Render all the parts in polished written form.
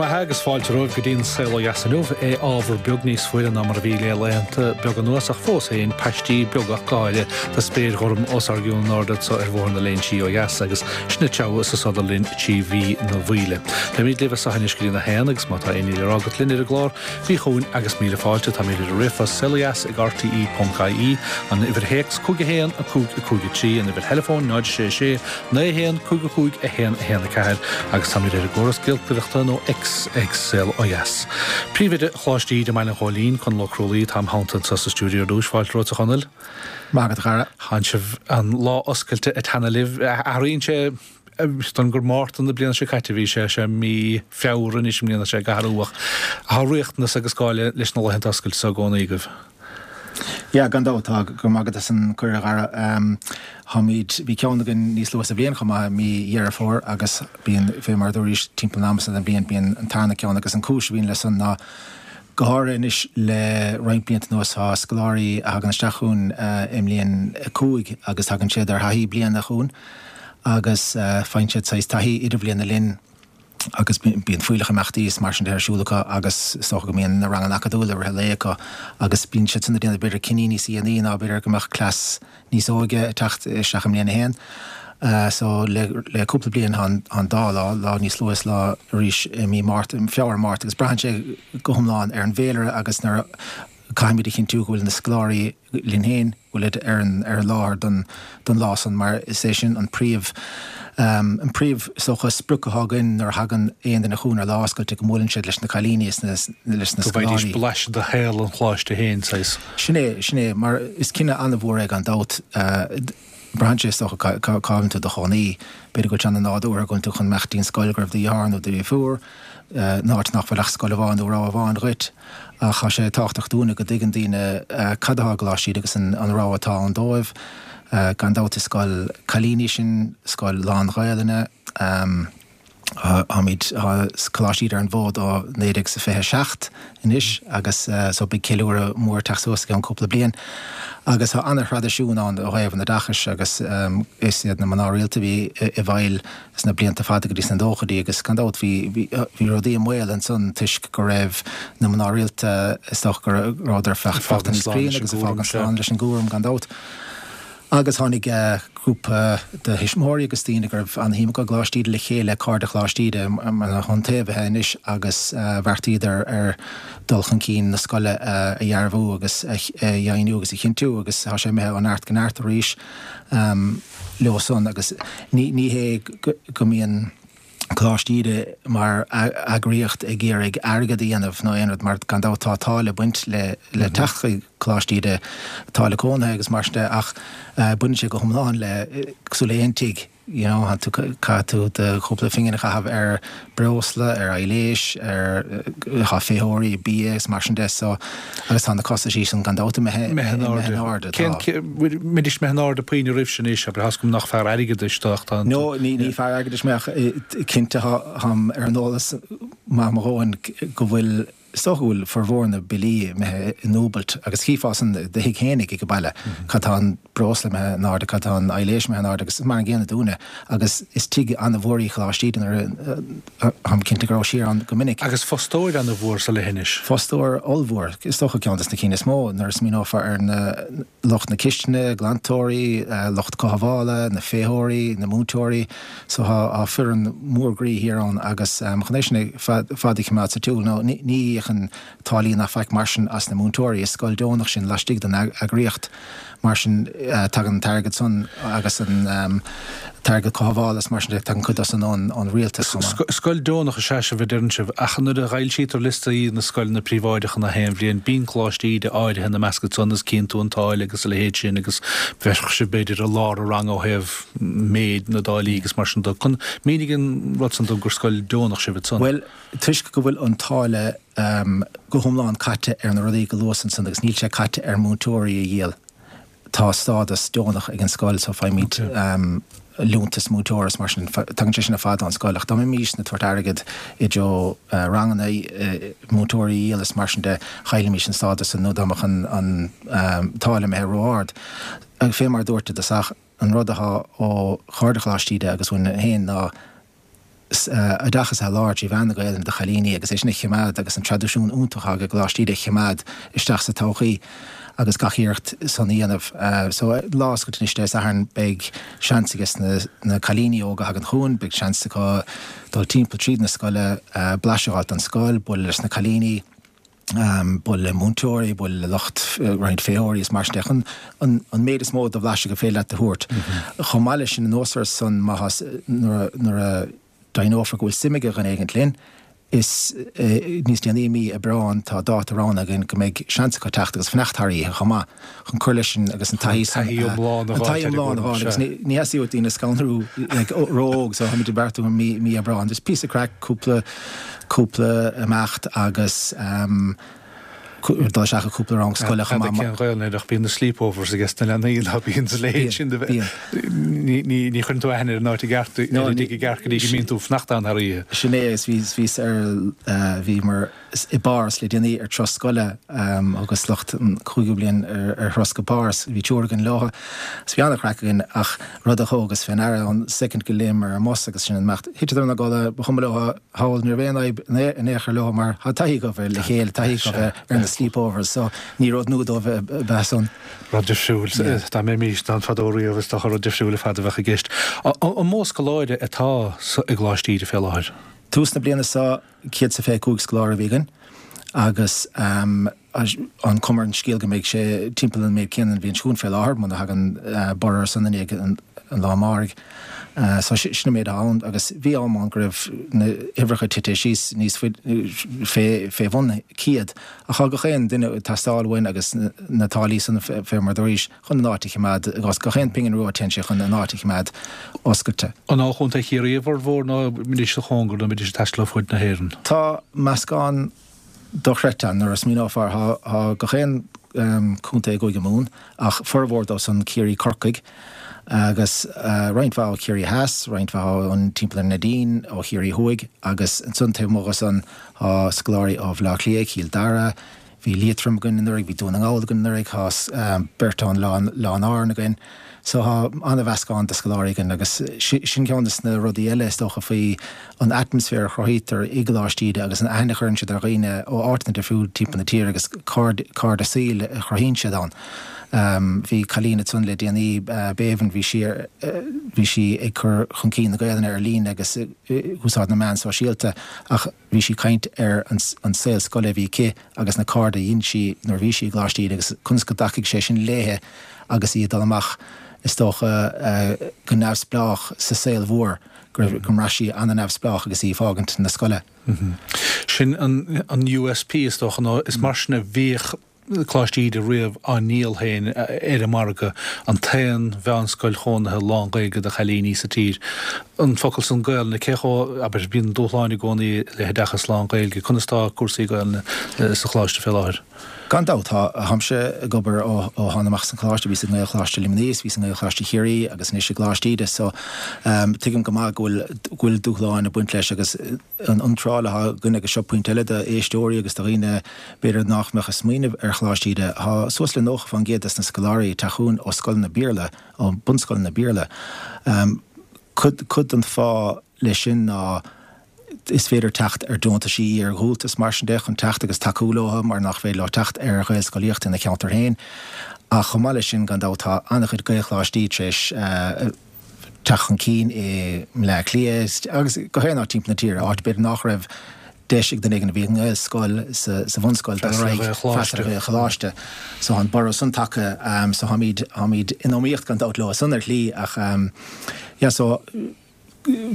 Go raibh maith agus fáilte romhaibh go dtí an Saol Ó Dheas inniu. É ábhar beag níos fuaire ná mar a bhí le laethanta beaga anuas ach fós féin paistí beaga ach go háirithe de spéir ghorm os ár gcionn in airde anso ar Bhóthar na Léinsí ó dheas agus sinn ag treabhadh is ag sodar linn trí mhí na bhFaoile. Beimid libh as seo anois go dtí a haon agus má tá aon ní le rá agat linn ar an gclár, bí chugainn agus míle fáilte. Táimid ar an ríomhphost saolodheas ag rte.ie, an uimhir théacs 5 1 5 5 3, an uimhir theileafóin 0 6 6 9 1 5 5 1 1 4 agus táimid ar an gcóras giolcaireachta nó X ag Saol Ó Dheas. Príomhoide Choláiste Íde i mBaile an Ghóilín, Conall Ó Crualaoi, atá im theannta anseo sa stiúideo ar dtús. Fáilte romhat a Chonaill. Maith agat a chara. Tánn sibh an lá oscailte ag teannadh libh. Athraíonn sé don gur Márta na bliana seo caite a bhí sé, sé mí Feabhra anois i mbliana sé ag athrú ach tá riachtanas agus gá leis na laethanta oscailte seo i gcónaí agaibh. Yeah, gan dabht tá. Go raibh maith agat as an cuireadh a Dhara. Táimid, bhí ceann againn níos luaithe sa bhliain chomh maith, mí Dheireadh Fómhair agus bíonn, fé mar a dúraís, timpeall an ama san den bhliain, bíonn an tarna ceann agus an cúis a bhíonn leis san ná go háirithe anois le roinnt blianta anuas tá scoláirí a thagann isteach chugainn i mbliain 5 agus tagann siad ar thaithí bliana chugainn agus faigheann siad saghas taithí idirbhliana linn agus bíonn fuílleach imeachtaí is mar sin de ar siúl acu agus is dócha go mbíonn na ranganna acadúla i rith an lae acu agus bíonn siad san ag déanamh b'fhéidir cinní níos dhéanaí ná b'fhéidir go mbeadh cleas níos óige ag teacht isteach i mbliain a haon. So le le cúpla bliain tá an dá lá, lá níos luaithe is lá arís i mí Márta, Feabhra, Márta agus braitheann sé go hiomlán ar an bhféilire agus nuair a caithfimid a chinntiú go bhfuil na scoláirí linn féin, go bhfuilid ar an ar an láthair don don lá san mar is é sin an príomh an príomh is dócha sprioc atá againn nuair a thagann aon duine chugainn ar lá oscailte go mbuaileann siad leis na cailíní is na leis na Go bhfaighidís scoláirí. blaiseadh de shaol an choláiste féin, saghas. Sin é, sin é, mar is cinneadh an-mhór é gan dabht. Braitheann sé is dócha cá bhfuil tú i do chónaí. B'fhéidir go bhfuil sé an-nádúrtha go bhfuil tú chun imeacht dtí'n scoil go raibh do dheartháir nó do dheirfiúr, in áit nach bhfuil ach scoil amháin nó rogha amháin dhuit. Ach tá sé tábhachtach dúinne go dtuigeann daoine cad atá i gColáiste Íde agus an rogha atá ann dóibh. Gan dabht is scoil cailíní sinn, scoil lán-Ghaelainne. Táimid, tá Coláiste Íde ar an bhfód ó 1927 anois agus so beidh ceiliúradh mór ag teacht suas i gceann cúpla bliain. Agus tá ana-thraidisiún ann ó thaobh an oideachais agus is iad na mná rialta a bhí i bhfeighil sna blianta fada go dtí sna nóchaidí agus gan dabht bhí, bhí rudaí i mbaol ansan toisc go raibh na mná rialta, is dócha go rabhadar fágtha níos críonna agus ag fágaint slán leis an gcúram gan dabht. Agus tháinig grúpa de thuismitheoirí agus daoine go raibh an-shuim acu i gColáiste Íde le chéile, Cairde Choláiste Íde, mar na hiontaobhaithe anois agus bheartaíodar ar dul chun cinn na scoile a dhearbhú agus a dheimhniú agus a chinntiú agus tá sé imithe ó neart go neart arís leo san agus ní hé go mbíonn Coláiste Íde mar eagraíocht ag iarraidh airgead a dhéanamh nó aon rud mar gan dabht tá táille ag baint le le teacht chuig Coláiste Íde, táille cónaithe agus mar sin de ach baineann sé go hiomlán le cosúil le aon tigh you know tá tú caithfidh tú do chúpla phingin a chaitheamh ar breosla, ar aibhléis, ar tá feitheoirí, bia is mar sin de so agus tá na costaisí sin gan dabht imithe imithe in airde. Tá. Cén mbeidís imithe in airde puinn roimh sin anois, abair, tá 'fhios agam nach fear airgeadais tú ach tá an. No, ní ní fear airgeadais mé ach cinnte táim ar an eolas maith mo dhóthain go bhfuil, is dócha go bhfuil formhór na billí imithe i ndúbailt agus chífeá san i do thigh fhéinig ag an baile, cad tá an breosla imithe in airde, cad tá an aibhléis imithe in airde agus mar an gcéanna dúinne agus is tigh an-mhór í Coláiste Íde nuair a táim cinnte go raibh siar ann go minic. Agus fostóir an-mhór sa leithinis. Fostóir ollmhór, is dócha ceann des na cinn is mó nuair a smaoineofar ar na lucht na cistine, glantóirí, lucht cothabhála, na féitheoirí, na múinteoirí. So tá foireann mór groí thiar ann agus chun é sin fad a choimeád sa tsiúl nó ní íocann táillí ná faic mar sin as na múinteoirí. Is scoil deonach sin laistigh den eagraíocht. Mar sin, tagann an t-airgead san agus an t-airgead cothabhála is mar sin de, tagann cuid dó san ón rialtas chomh maith. Scoil deonach is ea sibh a deireann sibh, ach nuair a fhoilsítear liostaí na scoileanna príobháideacha na haon bhliain, bíonn Coláiste Íde áirithe ina measc san is cíonn tú an táille agus a leithéid sin agus bheadh sibh b'fhéidir i lár an ranga ó thaobh méid na dtáillí agus mar sin de. Mínigh an rud san dom gur scoil deonach sibh ansan. Bhuel, toisc go bhfuil an táille go hiomlán caite ar na rudaí go luas ansan agus níl sé caite ar múinteoirí a dhíol. Tá stádas deonach ag an scoil so faighimid liúntas múinteora is mar sin, tagann sé sin ar fad ón scoil ach dá mbeimisne ag tabhairt airgead i dtreo ranganna, múinteoirí a dhíol is mar sin de, chaillfimis an stádas san nó dá mbeadh an táille imithe ró-ard. Fé mar a dúirt i dtosach, an rud atá ó Chairde Choláiste Íde agus uainn féin ná. Oideachas a sholáthar trí mheán na Gaelainne do chailíní agus é sin a choimeád agus an traidisiún iontach atá ag Coláiste Íde a choimeád isteach sa todhchaí agus gach iarracht san a dhéanamh. So lá oscailte anois Dé Sathairn beidh seans ages na cailíní óga a thagann chugainn, beidh seans acu dul timpeall tríd na scoile, blaiseadh a fháilt den scoil, bualadh leis na cailíní. bualadh le múinteoirí, bualadh le lucht roinnt féitheoirí is mar sin de, chun an méid is mó de bhlaiseadh gur féidir leat a thabhairt. Chomh maith leis sin, anuas air san, má tá, nuair a deimhneofar go bhfuil suim ag dhuine éigint linn, is níos déanaí i mí Aibreáin tá dáta roghnaithe againn go mbeidh seans acu teacht agus fanacht thar oíche chomh maith chun cur leis an agus an taithí san, An taithí iomlán a an taithí iomlán a fháil agus ní theastaíonn uait daoine a scanrú like ró-óg so táimid ag beartú i mí Aibreáin. Just píosa craic, cúpla cúpla imeacht agus dul isteach i cúpla rang scoile chomh maith. Cén Ghaelainn air ach bíonn na sleepovers ages na leanaí ná bíonn sa leithéid sin de bheith. Ní chuireann tú aithne ar an áit i gceart, ar an dtigh i gceart go dtí go mbíonn tú ag fanacht ann thar oíche. Sin é agus bhíos ar, bhíomar i bPáras le déanaí ar turas scoile agus lucht an chúigiú bliain ar thuras go Páras. Bhí triúr againn leo agus bhí an-chraic againn ach rud a thógas fé ndeara ón soicind go léimeamar ar an mbus agus sinn ag imeacht, thiteadar ina gcodladh, ba chuma leo thall, ní raibh aon fhadhb in aon chor leo mar tá taithí acu bheith le chéile, taithí acu bheith ar na sleepovers so ní rud nua dóibh a bheith san. Rud difriúil, dá mbeimís ann fadó riamh is dócha rud difriúil ar fad a bheadh i gceist. An mó scoláire atá i gColáiste Íde fé láthair? Tús na bliana seo 125 scoláire a bhí againn agus an chuma ar an scéal go mbeidh sé timpeall an méid céanna an bhliain seo chugainn fé láthair, muna thagann borradh ar son i ndiaidh an lá amáirigh. So sin an méid atá ann agus bhí am ann go raibh na huimhreacha tite síos níos faide fé bhun 100 ach tá gach aon duine ag teastáil uainn agus na táillí san fé mar dúraís chun an áit a choimeád agus gach aon pingin rua téann sé chun an áit a choimeád oscailte. An ó Chontae Chiarraí a bhformhór nó an mbeidís sa chóngar nó an mbeidís ag taisteal ó fud na hÉireann? Tá meascán dochreidte ann nuair a smaoineofar. Tá gach aon chontae i gCúige Mumhan, ach formhór dóibh san Ciarraí, Corcaigh agus roinnt mhaith ó Chiarraí Theas, roinnt mhaith ón timpeall ar Neidín, ó Chiarraí Thuaidh agus ansan taobh amuigh de san tá scoláirí ó Bhaile Átha Cliath, Cill Dara, Bhí Liatroim againn anuraidh, bhí Dún na nGall againn anuraidh, tá beirt ón Oileán Árann againn. So tá an-mheascán de scoláirí againn agus sin ceann de na rudaí eile is dócha faoi an atmaisféar a chruthaítear i gColáiste Íde agus an aithne a chuireann siad ar dhaoine ó áiteanna difriúla timpeall na tíre agus cairde saoil a chruthaíonn siad ann. Bhí cailín ansan le déanaí, Béibhinn, bhí sí ar, bhí sí ag cur chun cinn na Gaelainne ar líne agus ag úsáid na meán sóisialta ach bhí sí ag caint ar an saol scoile a bhí aici agus na cairde a dhein sí nuair a bhí sí i gColáiste Íde agus conas go dtacaigh sé sin léithe agus í ag dul amach, is dócha, go neamhspleách sa saol mhór, go raibh, go mbraith sí an-neamhspleách agus í ag fágaint na scoile. Sin an USP, is dócha, nó is mar sin a bhíodh Coláiste Íde riamh á ndíol féin ar an margadh, an t-aon mheánscoil chónaithe lán-Ghaeilge do chailíní sa tír. An focal san Gaelainne, cé chomh, abair, bíonn dúshláin i gcónaí le hoideachas lán-Ghaeilge, conas tá cúrsaí Gaelainne sa Choláiste fé láthair? Gan dabht, tá. Táimse ag obair ó thána amach as an choláiste, bhíos i nGaelcholáiste Luimnigh is bhíos i nGaelcholáiste Chiarraí agus anois i gColáiste Íde so tuigim go maith go bhfuil, go bhfuil dúshláin ag baint leis agus an iontráil atá againn agus seo pointe eile d'éisteoirí agus do dhaoine b'fhéidir nách mbeadh ag smaoineamh ar Choláiste Íde, tá suas le 90% des na scoláirí ag teacht chugainn ó scoileanna Béarla, ó bunscoileanna Béarla. Cuid, cuid den fáth leis sin ná is féidir teacht ar deontaisí, ar dhúltais mar sin de chun teacht agus tacú leo mar nach féidir leo teacht ar Ghaelscolaíocht ina cheantar féin. Ach chomh maith leis sin, gan dabht, tá an-chuid Gaelcholáistí tar éis teacht chun cinn i mBleá Cliath agus gach aon áit timpeall na tíre, áit b'fhéidir nach raibh deis ag duine éigin a bhí i nGaelscoil sa bhunscoil dul ar aghaidh freastal ar Ghaelcholáiste. So tá an borradh san tagtha so táimid, táimid in iomaíocht gan dabht leo san ar shlí ach yeah so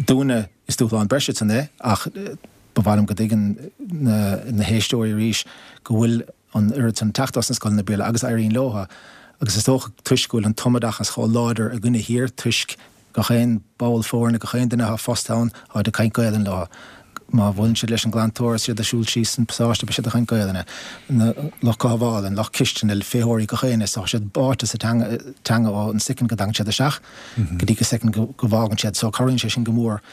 dúinne is dúshlán breise san é ach ba mhaith liom go dtuigeann na, na héisteoirí arís go bhfuil an oiread san teacht as na scoileanna Béarla agus éiríonn leo agus is dócha toisc go bhfuil an tumoideachas chomh láidir againne thiar toisc gach aon ball foirne, gach aon duine atá fostaithe ann, táid ag caint Gaelainn leo. Má bhuaileann siad leis an glantóir is iad ag siúl síos an pasáiste beidh siad ag caint Gaelainne. Na lucht cothabhála, an lucht cistine, féitheoirí, gach éinne, tá siad báite sa teanga, teanga ó an soicind go dtagann siad isteach go dtí go soicind go bhfágann siad. So cabhraíonn sé sin go mór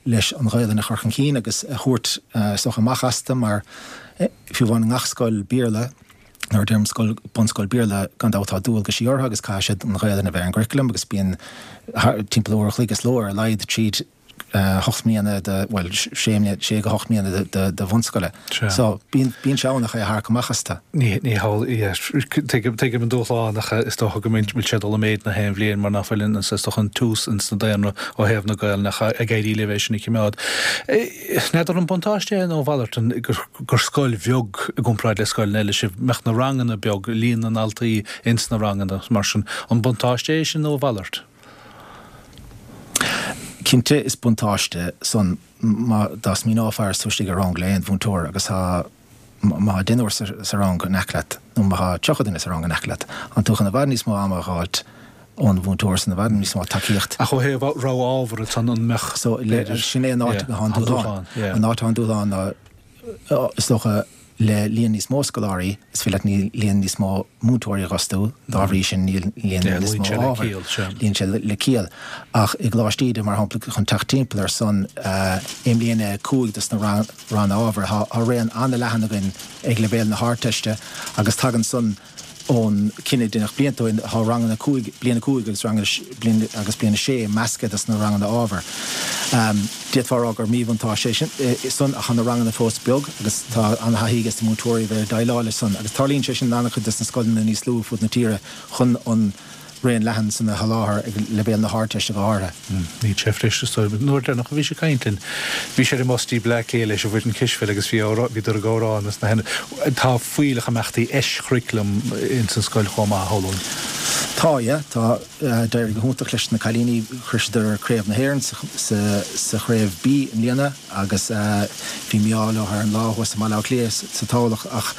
leis an Ghaelainn a chur chun cinn agus a thabhairt is dócha amach astu mar Fiú amháin i ngach scoil Béarla, nuair a deirim scoil, bunscoil Béarla, gan dabht tá dualgaisí orthu agus caithfidh siad an Ghaelainn a bheith ar an gcurriculum agus bíonn timpeall uair a chloig is ló ar a laghad tríd. 8 mbliana de, bhuel, sé mbliana, sé go hocht mbliana de, de, de bhunscoile. Sea. So, bíonn, bíonn sé ann ach é a tharrac amach astu. Ní, ní hamhlaidh, yeah, tuigim, tuigim an dúshlán ach is dócha go mbeidh, bhfuil sé ag dul i méid na haon bhliain mar nach bhfuil an, is dócha an tiús ins na daonra ó thaobh na Gaelainne ach ag éirí libh é sin a chimeád. N'fheadar an buntáiste é nó a mhalairt an, gur, gur scoil bheag i gcomparáid le scoileanna eile sibh, mbeadh na ranganna beag, líon na ndaltaí ins na ranganna mar sin, an buntáiste é sin nó a mhalairt? Cinnte is buntáiste san má dá smaoineofá is tú istigh i rang le aon mhúinteoir agus tá má tá deichniúr sa rang in aice leat nó má tá 30 duine sa rang in aice leat, tá tú chun i bhfad níos mó ama a dh'fháilt ón mhúinteoir san, i bhfad níos mó tacaíocht. Ach ó thaobh rogha ábhar ansan an mbeadh, So, sin é an áit atá an dúshlán. An áit atá an dúshlán ná Is dócha, le líon níos mó scoláirí, is féidir leat líon níos mó múinteoirí a dh'fhostú, dá bhrí sin níl líon níos mó ábhar. Luíonn sé le ciall. Ach i gColáiste Íde, mar shampla, chun teacht timpeall ar san, i mbliain a 5 dos na ranna ábhair, tá raon an-leathan againn ag leibhéal na hArdteiste agus tagann san Ón cinneadh a deineadh blianta ó shin, tá ranganna 5, bliain 5 agus ranganna bliain agus bliain 6 measctha dos na ranganna ábhair. D'fhéadfá a rá gur míbhuntáiste é sin san ach tá na ranganna fós beag agus tá an-thaithí ages na múinteoirí a bheith ag déileáil leis san agus tarlaíonn sé sin in an-chuid des na scoileanna níos lú ar fud na tíre chun an raon leathan san a sholáthar ag leibhéal na hArdteiste go háirithe. Níl sé freisin is dóigh. An uair deireanach a bhís ag caint linn, bhís ar an mbus dtí Bleá Cliath leis an bhfoireann cispheile agus bhí bhíodar ag amhrán is na Tá fuílleach imeachtaí eischurriculum ins an scoil chomh maith, a shamhlóinn. Tá, yeah. Tá. D'éirigh go hiontach leis na cailíní. Shroiseadar Craobh na hÉireann sa Chraobh B i mbliana agus bhí mí-ádh leo ar an lá thuas i mBaile Átha Cliath sa toghlach ach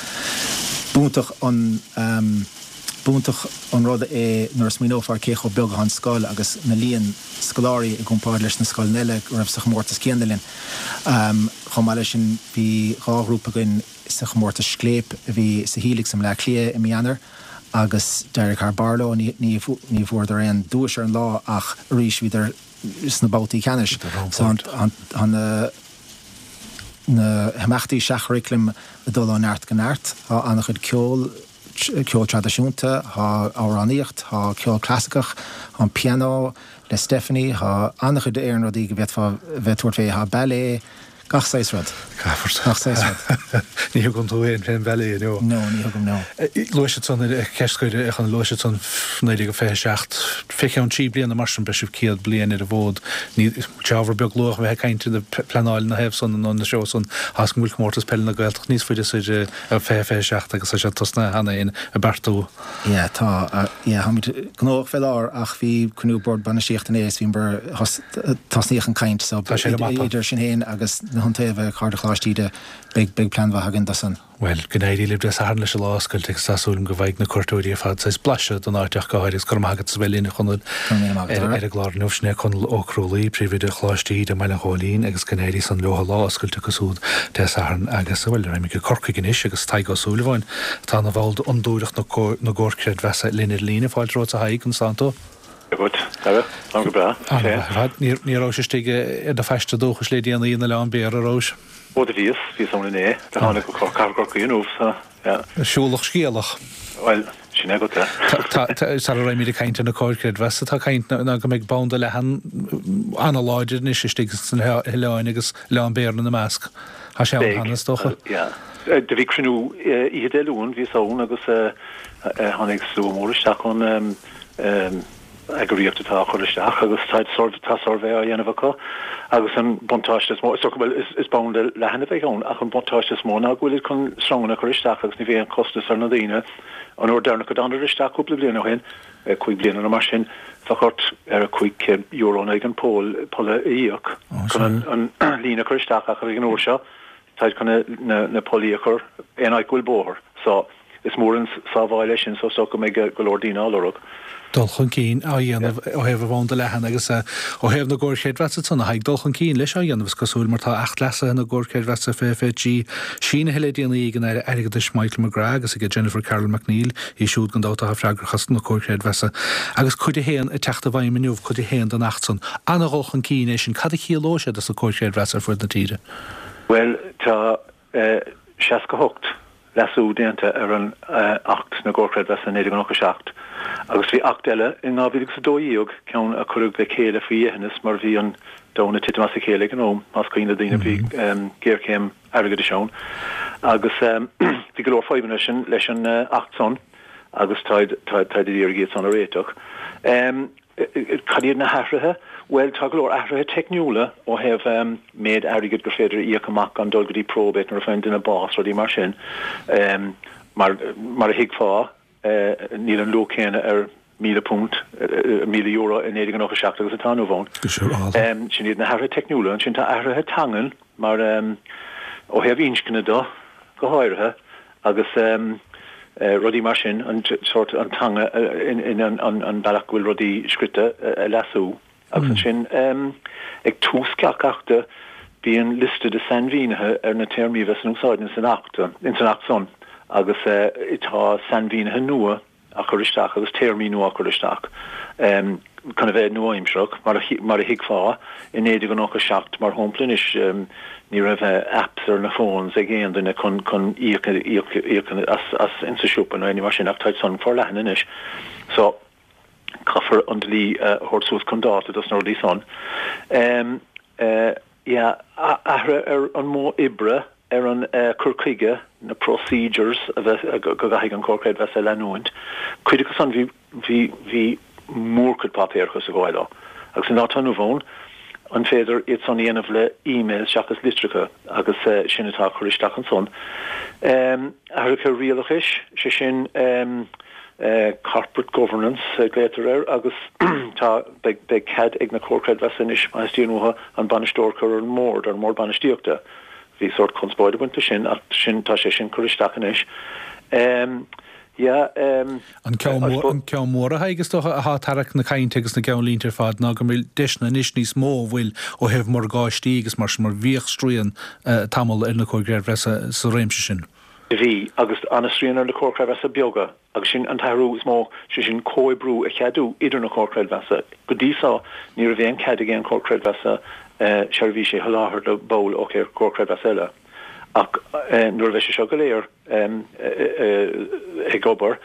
b'iontach an B'iontach an rud é nuair a smaoineofar cé chomh beag atá an scoil agus na líon scoláirí i gcomparáid leis na scoileanna eile go raibh sa chomórtas céanna linn. Chomh maith leis sin bhí 2 ghrúpa againn sa chomórtas Scléip a bhí sa Helix i mBleá Cliath i mí Eanáir agus d'éirigh thar barr leo. Ní bhfuaireadar aon duais ar an lá ach arís bhíodar sna babhtaí ceannais. So tá na na himeachtaí seach-churaclaim ag dul ó neart go neart. Tá an-chuid ceoil. ceol traidisiúnta, tá amhránaíocht, tá ceol clasaiceach, tá an pianó le Stephanie, tá an-chuid éarann rudaí go bhféadfá bheith ag tabhairt fé, tá ballet, gach saghas rud. Gach saghas rud. Ní thugann tú féin fén ballet, no? No, ní thugaim, no. Luaigh siad san, ceist scoir, a Chonaill, luaigh siad san 1927, fé cheann 3 bliana mar sin beidh sibh 100 bliain ar an bhfód. Ní, sé ábhar beag luath a bheith ag caint ina pleanáil ina thaobh san nó ina threo san, tá 's agam go bhfuil comórtas peile na Gaeltachta níos faide soir 2027 agus tá sé tosnaithe cheana féin ag beartú. Yeah, tá, yeah, táimid gnóthach fé láthair ach bhí cruinniú Bord Bainistíochta inné is bhíomar, tosnaíodh an caint so Tá sé ar an mapa. idir sinn féin agus na hIontaobhaithe, Cairde Choláiste Íde, beidh, beidh plean mhaith againn do san. Bhuel, go n-éirí libh Dé Sathairn leis an lá oscailte agus tá súil agam go bhfaighidh na cuairteoirí ar fad saghas blaiseadh den áit ach go háirithe agus go raibh maith agat as a bheith linn a Chonaill ar an gclár inniu. Sin é Conall Ó Crualaoi, Príomhoide Choláiste Íde i mBaile an Ghóilín agus go n-éirí san leo an lá oscailte acu siúd Dé Sathairn agus, bhuel, raghaimid go Corcaigh anois agus Tadhg Ó Súilleabháin, atá ina bhall d'Fhondúireacht na gComhar Creidmheasa linn ar líne. Fáilte romhat a Thaidhg, conas tánn tú? Dia dhuit, Dara. Táim go breá. An-mhaith ar fad. Ní rabhais istigh ar do phaiste dúchais le déanaí in Oileán Béara, a rabhais? Ó do bhíos, bhíos ann inné. Do tháinig go Cathair Chorcaí inniu, so, yeah. Siúlach scéalach. Bhuel, sin é agat é. Tá, sara raghaimid ag caint ar na comhair creidmheasa, tá caint ná go mbeidh banda leathan an-láidir anois istigh sna hoileáin agus Oileán Béara ina measc. Tá sé ann cheana, is dócha. Yeah. Do bhí cruinniú oíche Dé Luain, bhíos ann agus tháinig slua mór isteach ón eagraíocht atá á chur isteach agus tá tá suirbhé á dhéanamh acu agus an buntáiste is mó, is dócha, bhuel, is banda leathan a bheidh ann ach an buntáiste is mó ná go bhfuilid chun sreanganna a chur isteach agus ní bheidh aon chostas ar na daoine. An uair deireanach a dtánadar isteach cúpla bliain ó shin, 5 bliana nó mar sin, bheadh ort ar €500 in aghaidh an poll polla a íoc chun an líne a chur isteach ach ag an uair seo táid chun na pollaí a chur aon áit go bhfuil bóthar. So, is mór an sábháil é sin so is dócha go mbeidh go leor daoine á lorg. Dul chun cinn á dhéanamh ó thaobh an bhanda leathan agus ó thaobh na gcomhar creidmheasa ansan a Thaidhg, dul chun cinn leis á dhéanamh is cosúil mar tá Acht Leasaithe na gComhar Creidmheasa 2023 sínithe le déanaí ag an Aire Airgeadais Michael McGrath agus ag Jennifer Carroll MacNeill, í siúd gan dabht atá freagrach as na comhair chreidmheasa, agus Cuid 1 ag teacht i bhfeidhm inniu, Cuid 1 den Acht san. Ana-dhul chun cinn é sin. Cad a chiallóidh sé dos na comhair chreidmheasa ar fud na tíre? Bhuel, tá 68. leasú déanta ar an Acht na gComhar Creidmheasa 1997 agus bhí Acht eile in 2012, ceann a cuireadh le chéile faoi dheithneas mar bhí an domhan ag titim as a chéile ag an am, más cuimhin le daoine bhí géarchéim airgeadais ann agus bhí go leor fadhbanna leis an Acht san agus táid táid ag iarraidh iad san a réiteach. Cad iad na hathruithe? Bhuel, tá go leor athruithe teicniúla ó thaobh méid airgid gur féidir a íoc amach gan dul go dtí probate nuair a faigheann duine bás, rudaí mar sin. Mar mar a thuigfeá, níl an luach céanna ar £1,000, €1,000 i 1997 agus atá inniu ann. Sin iad na hathruithe teicniúla. Ansin tá athruithe teangan mar ó thaobh inscne de go háirithe agus rudaí mar sin, an sórt, an teanga in an bealach go bhfuil rudaí scrite a leasú. Agus ansin ag tús gach achta bíonn liosta de sainmhínithe ar na téarmaí a bheas in úsáid ins an Acht, ins an Acht san agus tá sainmhínithe nua á chur isteach agus téarmaí nua á cur isteach chun a bheith nua-aimsearach, mar a thuigfeá. I 1997, mar shampla anois, ní raibh apps ar na phones ag aon duine chun chun íoc íoc as as insa siopa nó aon ní mar sin ach táid san forleathan anois. So, caithfear an dlí a thabhairt suas chun dáta dos na rudaí san. Yeah, athruithe ar an modh oibre, ar an cur chuige, na procedures a bheith, go gcaithfidh an Comhar Creidmheasa a leanúint. Cuid acu san bhí, bhí, bhí mórchuid páipéarachas ag gabháil leo. Agus an lá atá inniu ann, an féidir iad san a dhéanamh le emails seachas litreacha agus sin atá á chur isteach ansan. Athruithe rialachais, sé sin corporate governance a ghlaotar air agus tá, beidh, beidh cead ag na Comhair Creidmheasa anois má theastaíonn uathu an bainisteoir a chur ar an mbord, ar an mbord bainistíochta. Bhí sórt conspóid ag baint leis sin ach sin, tá sé sin curtha isteach anois. Yeah, An ceann mór, an ceann mór a Thaidhg, is dócha, atá ag tarrac na cainte agus na gceannlínte ar fad ná go bhfuil deiseanna anois níos mó an bhfuil ó thaobh morgáistí agus mar sin mar bhíodh srian tamall ar na Comhair Creidmheasa sa réimse sin. Bhí, agus an-srian ar na Comhair Creidmheasa beaga, agus sin an t-athrú is mó, sé sin comhoibriú a cheadú idir na Comhair Creidmheasa. Go dtí so, ní raibh aon cead ag aon Chomhar Creidmheasa seirbhísí a sholáthar do bhall ó Chomhar Creidmheasa eile. Ach nuair a bheidh sé seo go léir ag obair,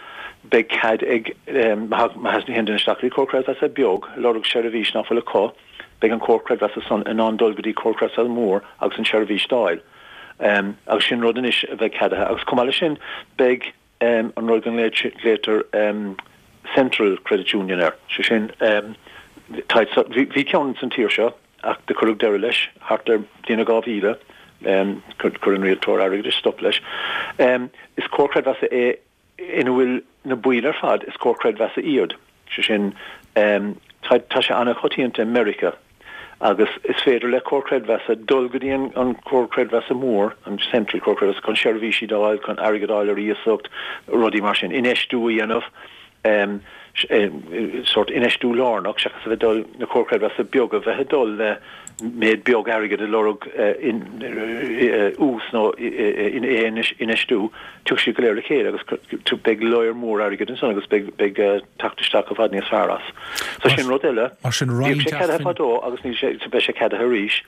beidh cead ag, má théann duine isteach go dtí Comhar Creidmheasa beag, ag lorg seirbhís nach bhfuil acu, beidh an Comhar Creidmheasa san in ann dul go dtí Comhar Creidmheasa mór agus an tseirbhís d'fháil. Agus sin rud anois a bheidh ceadaithe. Agus chomh maith leis sin, beidh an rud go nglaotar Central Credit Union air, sé sin, bhí ceann san tír seo ach do cuireadh deireadh leis thart ar bliain 2000, chuir an rialtóir airgeadais stop leis. Is comhar creidmheasa é ina bhfuil na baill ar fad, is comhar creidmheasa iad, sé sin, tá, tá sé an-choitianta i Meiriceá agus is féidir le comhar creidmheasa dul go dtí an, an comhar creidmheasa mór, an central comhar creidmheasa, chun seirbhísí d'fháil, chun airgead a fháil ar iasacht, rudaí mar sin, infheistiú a dhéanamh. sórt infheistiú lárnach seachas a bheith ag dul, na comhair chreidmheasa beaga, bheith ag dul le méid beag airgid ag lorg ús nó infheistiú, tiocfaidh siad go léir le chéile agus beidh lear mór airgid ansan agus beidh teacht isteach i bhfad níos fearr as. So sin rud eile. Mar sin Bhíodh sé ceadaithe fadó agus níl sé, beidh sé ceadaithe arís.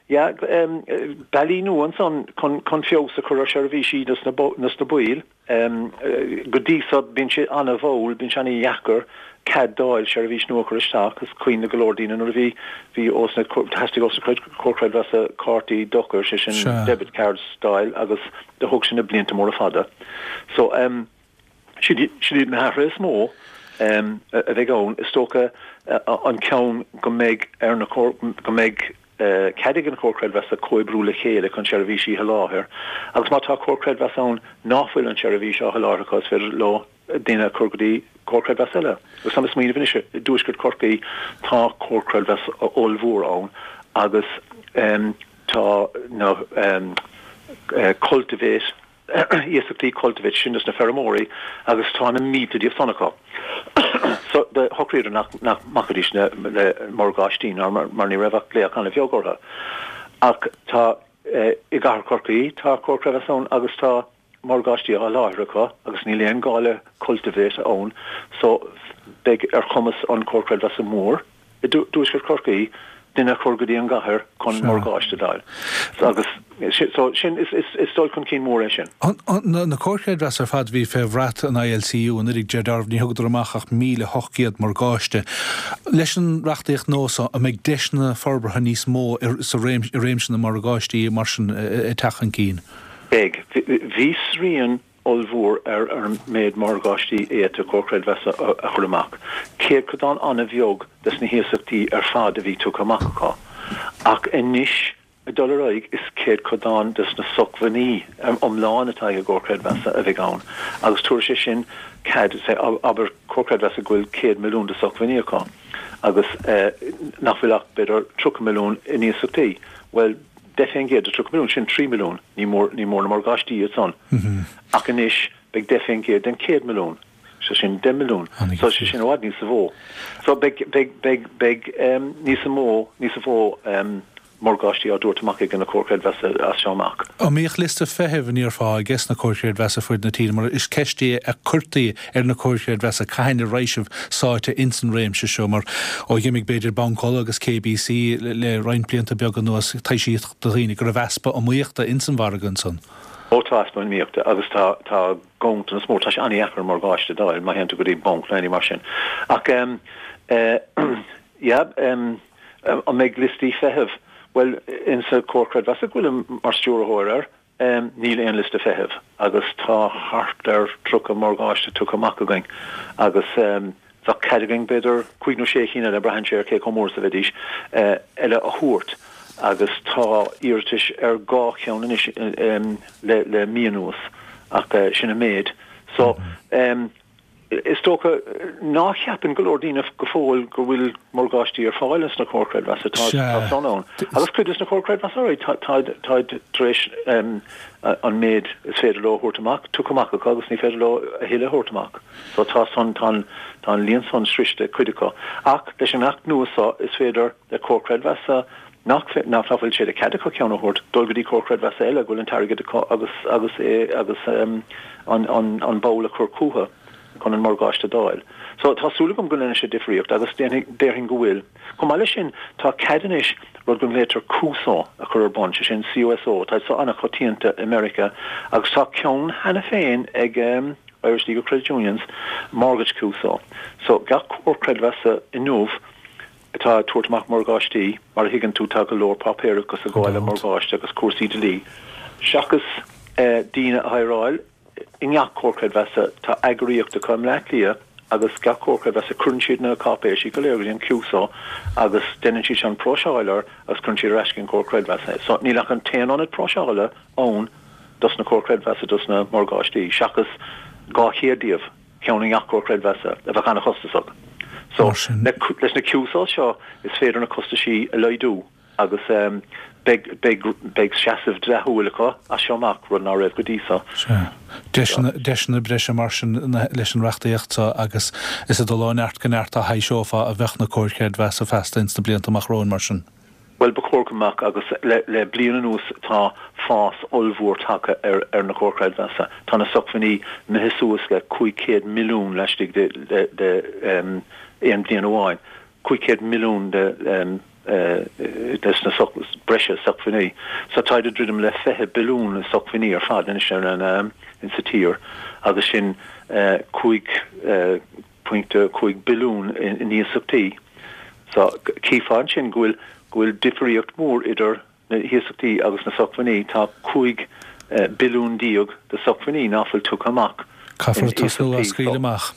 Yeah, bealaí nua ansan chun feabhas a chur ar sheirbhísí dos na baill. Go dtí so, bíonn sé an-mhall, bíonn sé an-dheacair cead d'fháil seirbhís nua a chur isteach. Is cuimhin le go leor daoine nuair a bhí, bhí ós na, theastaigh ós na comhair chreidmheasa cártaí dochair, sé sin debit cards d'fháil agus do thóg sin na blianta móra fada. So, sin iad na hathruithe is mó a bheidh ann. Is dócha an ceann go mbeidh ar na, go mbeidh, cead ag an Chomhar Creidmheasa comhoibriú le chéile chun seirbhísí a sholáthar agus má tá Comhar Creidmheasa ann nach bhfuil an tseirbhís á sholáthar acu is féidir leo daoine a chur go dtí Comhar Creidmheasa eile. Agus táim ag smaoineamh anois, i dTuaisceart Chorcaí tá Comhar Creidmheasa ollmhór ann agus tá na Cultivate, iasachtaí Cultivate sin dos na feirmeoirí agus tá na mílte díobh san acu. So do shocraíodar nach nach mbacfaidís le le morgáistí ná mar mar ní raibh ach glaoch an-bheag orthu. Ach tá i gcathair Chorcaí tá Comhar Creidmheasa ann agus tá morgáistí á sholáthar acu agus níl aon gá le Cultivate ann so beidh ar chumas an Comhar Creidmheasa mór i dTuaisceart Chorcaí. duine a chur go dtí an gcathair chun morgáiste d'fháil. Agus so sin, is dul chun cinn mór é sin. Na comhair chreidmheasa ar fad a bhí fé bhrat an ILCU anuraidh, deir Darragh, ní thugadar amach ach 1,800 morgáiste. Leis an reachtaíocht nua so, an mbeidh deiseanna forbartha níos mó sa i réimse na morgáistí mar sin ag teacht chun cinn? Beidh. Bhí srian ollmhór ar an méid morgáistí a d'fhéadfadh comhar creidmheasa a chur amach. Céadchodán an-bheag des na hiasachtaí ar fad a bhí tugtha amach acu. Ach anois, ag dul ar aghaidh, is céadchodán des na socmhainní iomlán atá ag an gcomhar creidmheasa a bheidh ann. Agus tabharfaidh sé sin cead, abair, comhar creidmheasa go bhfuil 100 milliún de socmhainní acu agus nach bhfuil ach b'fhéidir 30 milliún in iasachtaí. Bhuel, 10% de 30 milliún, sin 3 milliún, ní mór, ní mór na morgáistí iad san. Ach anois beidh 10% den 100 milliún, so sin 10 milliún, so sé sin i bhfad níosa mhó. So beidh, beidh, beidh, beidh níosa mó, níosa mhó morgáistí á dtabhairt amach ag na comhair chreidmheasa as seo amach. An mbíodh liosta feithimh, an ndéarfá, ages na comhair chreidmheasa fuaid na tíre, mar is ceist é a cuirtí ar na comhair chreidmheasa cathain a raibh sibh sáite ins an réimse seo mar ó dh'imigh b'fhéidir Banc Uladh agus KBC le roinnt blianta beaga anuas taibhsíodh do dhaoine go raibh easpa iomaíochta ins an mhargadh ansan. Ó tá easpa iomaíochta agus tá tá ganntanas mór, tá sé an-dheacair morgáiste d'fháil má théann tú go dtí banc nó aon ní mar sin. Ach em eh yeah em an mbeidh liostaí feithimh? Bhuel insa Comhar Creidmheasa go bhfuilim mar stiúrthóir air, Níl aon liosta feithimh agus tá thart ar 30 morgáiste tugtha amach againn agus bheadh cead againn b'fhéidir cúig nó sé chinn eile, braitheann sé ar cé chomh mór is a bheidís, eile a thabhairt agus tá iarratais ar dhá cheann anois le mí anuas ach sin an méid. So. Is dócha ná ceapann go leor daoine go fóill go bhfuil morgáistí ar fáil ins na comhair creidmheasa. Tá Sea. san ann. Agus cuid des na comhair creidmheasa ar aghaidh, táid tar éis an méid is féidir leo a thabhairt amach tugtha amach acu agus ní féidir leo a thuilleadh a thabhairt amach. So tá san, tá an, tá an líon san sroichte ag cuid acu. Ach leis an Acht nua so is féidir le comhar creidmheasa nach, nach bhfuil sé de chead acu ceann a thabhairt, dul go dtí comhar creidmheasa eile go bhfuil an t-airgead acu agus, agus é, agus an, an, an ball a chur chucu chun an morgáiste d'fháil. So, tá súil agam go ndéanfaidh sé difríocht agus déanfaidh, déarfainn go bhfuil. Chomh maith leis sin, tá cead anois rud go nglaoitear CUSO a chur ar bun, sé sin CUSO, tá so an-choitianta i Meiriceá agus tá ceann cheana féin ag Irish League of Credit Unions, Mortgage CUSO. So, gach comhar creidmheasa inniu, atá ag tabhairt amach morgáistí, mar a thuigeann tú tá go leor páipéarachas ag gabháil le morgáiste agus cúrsaí dlí. Seachas daoine a hireáil i ngach comhar creidmheasa, tá eagraíocht acu i mBleá Cliath agus gach comhar creidmheasa cuireann siad na cáipéisí go léir go dtí an CUSO agus déanann siad sin próiseáil air agus cuireann siad ar ais chuig an gcomhar creidmheasa é. So níl ach an t-aon ionad próiseála ann dos na comhair creidmheasa dos na morgáistí seachas 200 díobh. ceann i ngach comhar creidmheasa, a bheadh an-chostasach. So, leis na CUSOs seo, is féidir na costaisí a laghdú agus beidh, beidh, beidh seasamh dleathúil acu as seo amach, rud ná raibh go dtí so. Sea. Deiseanna, deiseanna breise mar sin leis an reachtaíocht seo agus is ag dul ó neart go neart a thaibhseofá a bheadh na comhair chreidmheasa feasta ins na blianta amach romhainn mar sin. Bhuel, ba chóir go mbeadh, agus le bliain anuas tá fás ollmhór tagtha ar na comhair chreidmheasa. Tá na socmhainní imithe suas le 500 milliún laistigh de aon bhliain amháin. 500 milliún de na breise socmhainní. So táid ag druidim le 20 billiún i socmhainní ar fad anois insa tír agus sin 5 .5 billiún in iasachtaí. So, chífeá ansin go bhfuil, go bhfuil difríocht mhór idir na hiasachtaí agus na socmhainní. Tá 15 billiún de socmhainní ná fuil tugtha amach in Caithfear tosnú á iasachtaí. scaoileadh amach.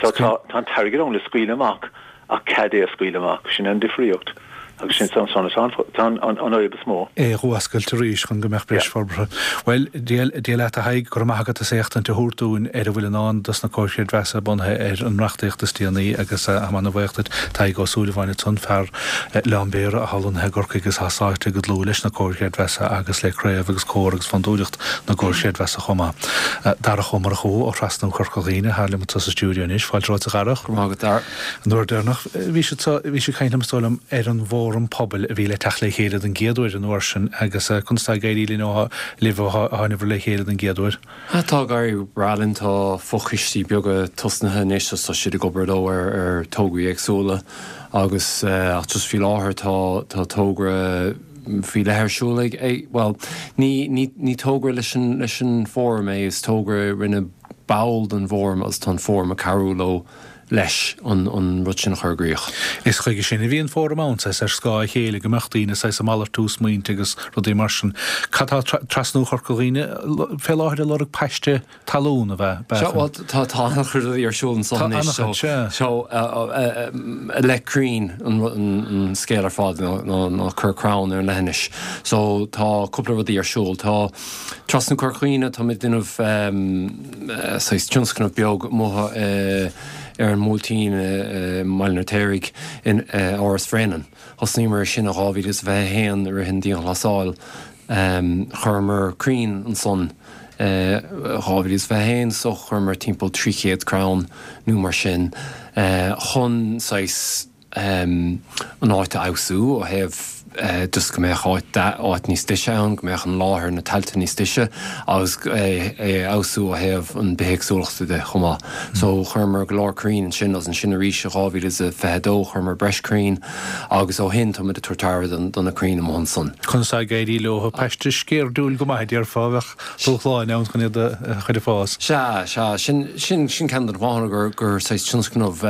So, tá, tá an t-airgead ann le scaoileadh amach ach cead é a scaoileadh amach. Sin é an difríocht. Agus sin san san atá an an fhadhb is mó. é a dh'fhuascailt arís chun go mbeadh breis forbartha. Bhuel, Dia Dia leat a Thaidhg, go raibh maith agat as éachtaint a thabhairt dúinn ar a bhfuil i ndán dos na comhair chreidmheasa bunaithe ar an reachtaíocht is déanaí agus táim ana-bhuíoch duit. Tadhg Ó Súilleabháin ansan, fear Oileán Béarra atá lonnaithe i gCorcaigh agus atá sáite go dlúth leis na comhair chreidmheasa agus le craobh agus comhar agus fondúireacht na gcomhar chreidmheasa chomh maith. Darach Ó Murchú ó Thrasnú Chorca Dhuibhne atá liom anso sa stiúideo anois. Fáilte romhat a Dharach. Go raibh maith agat, Dara. An uair deireanach bhí siad, bhí siad ag caint liom is dóigh liom ar an bhfón. Fóram Pobail a bhí le teacht le chéile don gcéad uair an uair sin agus conas tá ag éirí linn ó libh ó tháinabhair le chéile don gcéad uair? Tá ag éirí go breá linn, tá fochoistí beaga tosnaithe anois agus tá siad ag obair leo ar ar tograí éagsúla agus ach just faoi láthair tá tá togra faoi leith ar siúl ag ag bhuel ní ní ní togra leis an leis an bhfóram é is togra a rinne ball den bhfóram agus tá an fóram ag cabhrú leo leis an an rud sin a chur i gcrích. Is chuige sin a bhí an fóram ann, saghas ar scáth a chéile, go mbeadh daoine saghas ag malartú smaointe agus rudaí mar sin. Cad tá trasnú Chorca Dhuibhne fé láthair ag lorg paiste talún a bheith? Sea, bhuel, tá tá an-chuid rudaí ar siúl anso Tá anois, so, an-chuid, sea. so i leith crainn an an scéal ar fad ná ná ná cur crann ar an leithinis. So tá cúpla rudaí ar siúl. Tá trasnú Chorca Dhuibhne, táimid ag déanamh saghas tionscnamh beag amuigh ar an mBuailtín i mBaile an Fheirtéaraigh in Áras Bhréanainn. Thosnaíomar ar sin in 2021 i rith an dianghlasáil. Chuireamar crainn ansan i 2021 so chuireamar timpeall 300 crann nó mar sin chun saghas an áit a fheabhsú ó thaobh just go mbeadh áit áit níos deise ann, go mbeadh an láthair, na tailte níos deise agus é a fheabhsú ó thaobh an bithéagsúlachta de chomh maith. So chuireamar go leor crainn ansin agus ansin arís i 2022 chuireamar breis crainn agus ó shin táimid ag tabhairt aire do na crainn amuigh ansan. Conas tá ag éirí leo? Paiste sceirdiúil go maith a déarfá, bheadh dúshláin ann chun iad a chur ag fás. Sea, sea, sin, sin, sin ceann de na fáthanna gur, gur saghas tionscnamh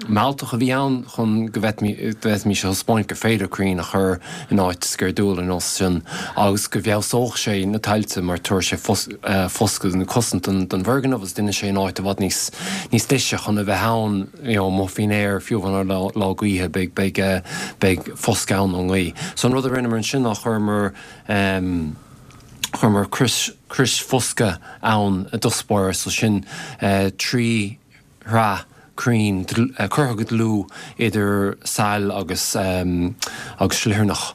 mealltach a bhí ann chun go bhféadfaimis a thaispeáint gur féidir crainn a chur in áit sceirdiúil ar nós sin agus go bhfeabhsódh sé na tailte mar tabharfaidh sé foscadh nó cosaint don, don bhfoirgneamh agus déanfaidh sé an áit i bhfad níos, níos deise chun a bheith ann you know amuigh faoin aer fiú amháin ar lá, lá gaoithe beidh, beidh, beidh foscadh ann ón ngaoth. So an rud a rinneamar ansin ná chuireamar Chuireamar crios, crios foscaidh ann i dtosach báire, so sin 3 shraith crainn curtha go dlúth idir sail agus agus sliothaireach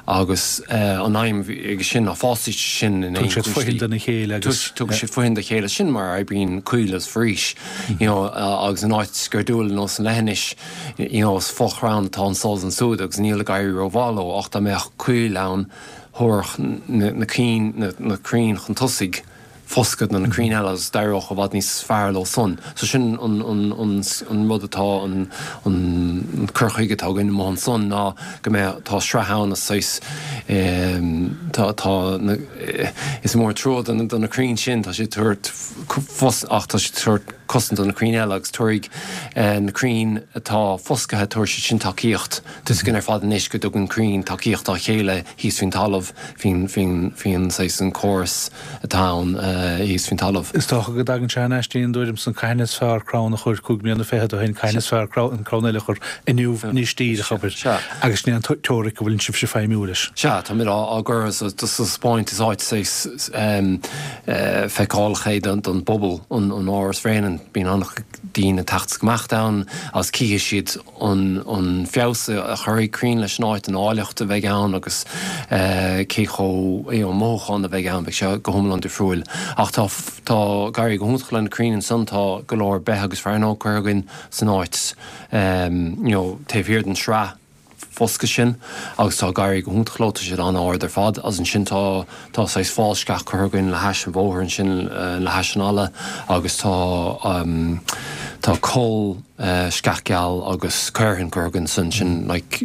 agus an aidhm aige sin ná fásfaidh siad sin in aon Tugann siad fothain dona chéile agus. Tugann siad fothain dá chéile, sin mar a oibríonn coill agus foraois you know agus in áit sceirdiúil ar nós an leithinis you know is fo-chrann atá anso is ansúd agus níl ag éirí rómhaith leo ach dá mbeadh coill ann thabharfadh na cinn, na crainn chun tosaigh foscadh do na crainn eile agus d'éireodh i bhfad níos fearr leo san. So sin an, an, an, an rud atá, an, an cur chuige atá againn amuigh ansan ná go mbeadh, tá sraith ann is saghas, tá, tá na, is mór an trua do na, do na crainn sin, tá siad ag tabhairt fos, ach tá siad ag tabhairt cosaint do na crainn eile agus tabharfaidh na crainn atá foscaithe, tabharfaidh siad sin tacaíocht. Tá 'fhios againn ar fad anois go dtugann crainn tacaíocht dá chéile thíos faoin talamh, faoin, faoin, faoin saghas, an córas atá ann thíos faoin talamh. Is dócha go dtagann sé thar n-ais dtí an dtuairim san cathain is fearr crann a chur 25 mbliana ó shin, cathain is fearr an crann eile a chur inniu anois díreach, abair. Sea. Agus sin é an teoiric a bhfuileann sibhse feidhmiú leis. Sea, táimid á, á gcur sa, sa taispeáint is áit saghas feiceálach é don, don bpobal, an, an Áras Bhréanainn. Bíonn an-chuid daoine ag teacht is ag imeacht ann agus cífidh siad an feabhas a chuirfidh crainn leis an áit, an áilleacht a bheidh ann agus cé chomh, you know, mothúchán a bheidh ann, beidh sé go hiomlán difriúil. Ach tá, tá ag éirí go hiontach le na crainn ansan, tá go leor beith agus fearnóg curtha againn san áit, you know, taobh thiar den sraith foscaidh sin agus tá ag éirí go hiontach leo, tá siad an-ard ar fad agus ansin tá, tá saghas fál sceach curtha againn le hais an bhóthair ansin le hais an fhalla agus tá, tá coll sceach geal agus caorthann curtha againn ansan, sin like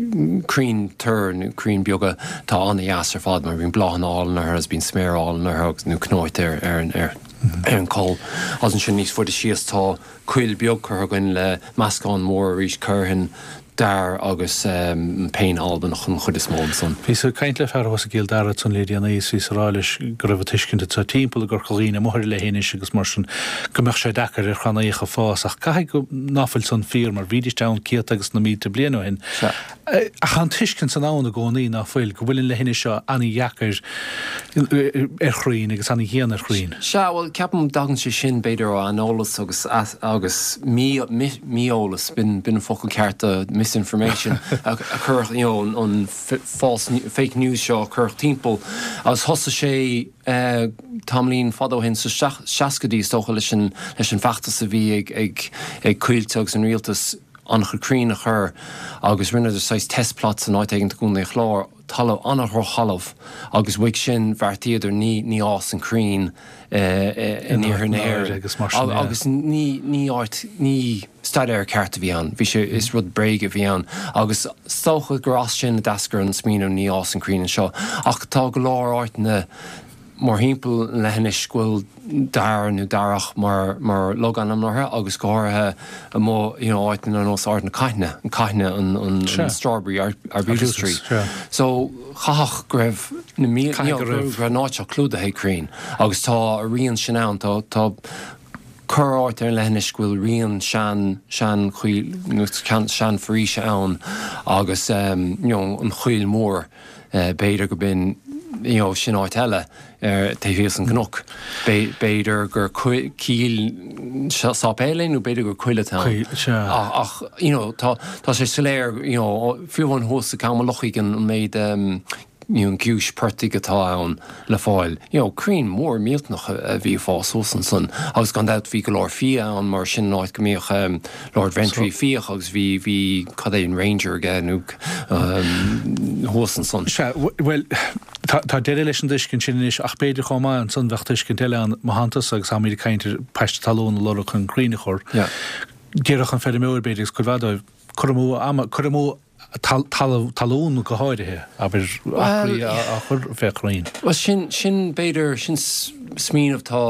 crainn toir nó crainn beaga atá an-dheas ar fad mar bíonn bláthanna álainn orthu agus bíonn sméar álainn orthu agus nó cnóite ar, ar an, ar, ar an coll. Agus ansin níos faide síos tá coill beag curtha againn le meascán mór arís caorthainn, dair agus péin Albanach an chuid is mó ansan. Bhíos ag caint le fear thuas i gCill Dara ansan le déanaí is bhíos ag rá leis go raibh an tuiscint anseo timpeall i gCorca Dhuibhne amuigh ar an leithinis agus mar sin go mbeadh sé deacair ar chrannaíocha fás ach caithfidh go ná fuil san fíor mar bhídíst ann céadta agus na mílte bliain ó shin. Ach tá an tuiscint san ann i gcónaí ná fuil, go bhfuil an leithinis seo ana-dheacair ar chrainn agus ana-dhian ar chrainn. Sea, bhuel, ceapaim dtagann sé sin b'fhéidir ó aineolas agus agus mí-eolas, b'in an focal ceart do misinformation, a cuireadh, you know, an false, fake news seo a cuireadh timpeall agus thosaigh sé tamaillín fada ó shin, sna seascaidí is dócha, leis an feachtas a bhí ag Coillte agus an rialtas. an-chuid crainn a chur agus rinneadar saghas test plots in áit éigin i gContae an Chláir, talamh, an-dhrochthalamh agus uaidh sin bheartaíodar ní, ní fhásann crainn in iarthar na hÉireann agus ní, ní áit, ní staidéar ceart a bhí ann, bhí sé, is rud bréige a bhí ann agus is dócha gur as sin a d'eascair an smaoineamh ní fhásann crainn anseo ach tá go leor áiteanna mórthimpeall an leithinis go bhfuil dair nó darach mar mar logainm orthu agus go háirithe amuigh you know áiteanna ar nós Ard na Caithne, an Caithne an an an strawberry arbutus tree. So chaithfeadh go raibh na mílte you know go raibh an áit seo clúdaithe ag crainn agus tá a rian sin ann tá tá corr áit ar an leithinis go bhfuil rian sean sean choill nó sean foraoise ann agus you know an Choill Mhór. B'fhéidir go b'in, you know, sin áit eile ar taobh thíos an gcnoc. B'fhéidir gur cill sáipéil é nó b'fhéidir gur coill atá ann. Ach, you know, tá tá sé soiléir, you know, fiú amháin thuas i gCam an Lochaigh an méid you know, giúis portaigh atá ann le fáil. You know, crainn mór millteanach a bhí ag fás thuas ansan agus gan dabht bhí go leor fia ann mar sin an áit go mbíodh Lord Ventry ag fiach agus bhí, bhí, cad é, an Ranger aige nó thuas ansan. Sea, bhuel, tá, tá deireadh leis an dtuiscint sin anois ach b'fhéidir chomh maith ansan bheadh tuiscint eile ann, mo theannta-sa agus táimid ag caint ar paiste talún a lorg chun crainn a chur. Déarfadh an feirmeoir b'fhéidir agus cuid mhaith dóibh, cur amú ama, cur amú talamh, talún go háirithe, abair, acraí á chur fé chrainn. Bhuel, sin, sin b'fhéidir, sin smaoineamh atá,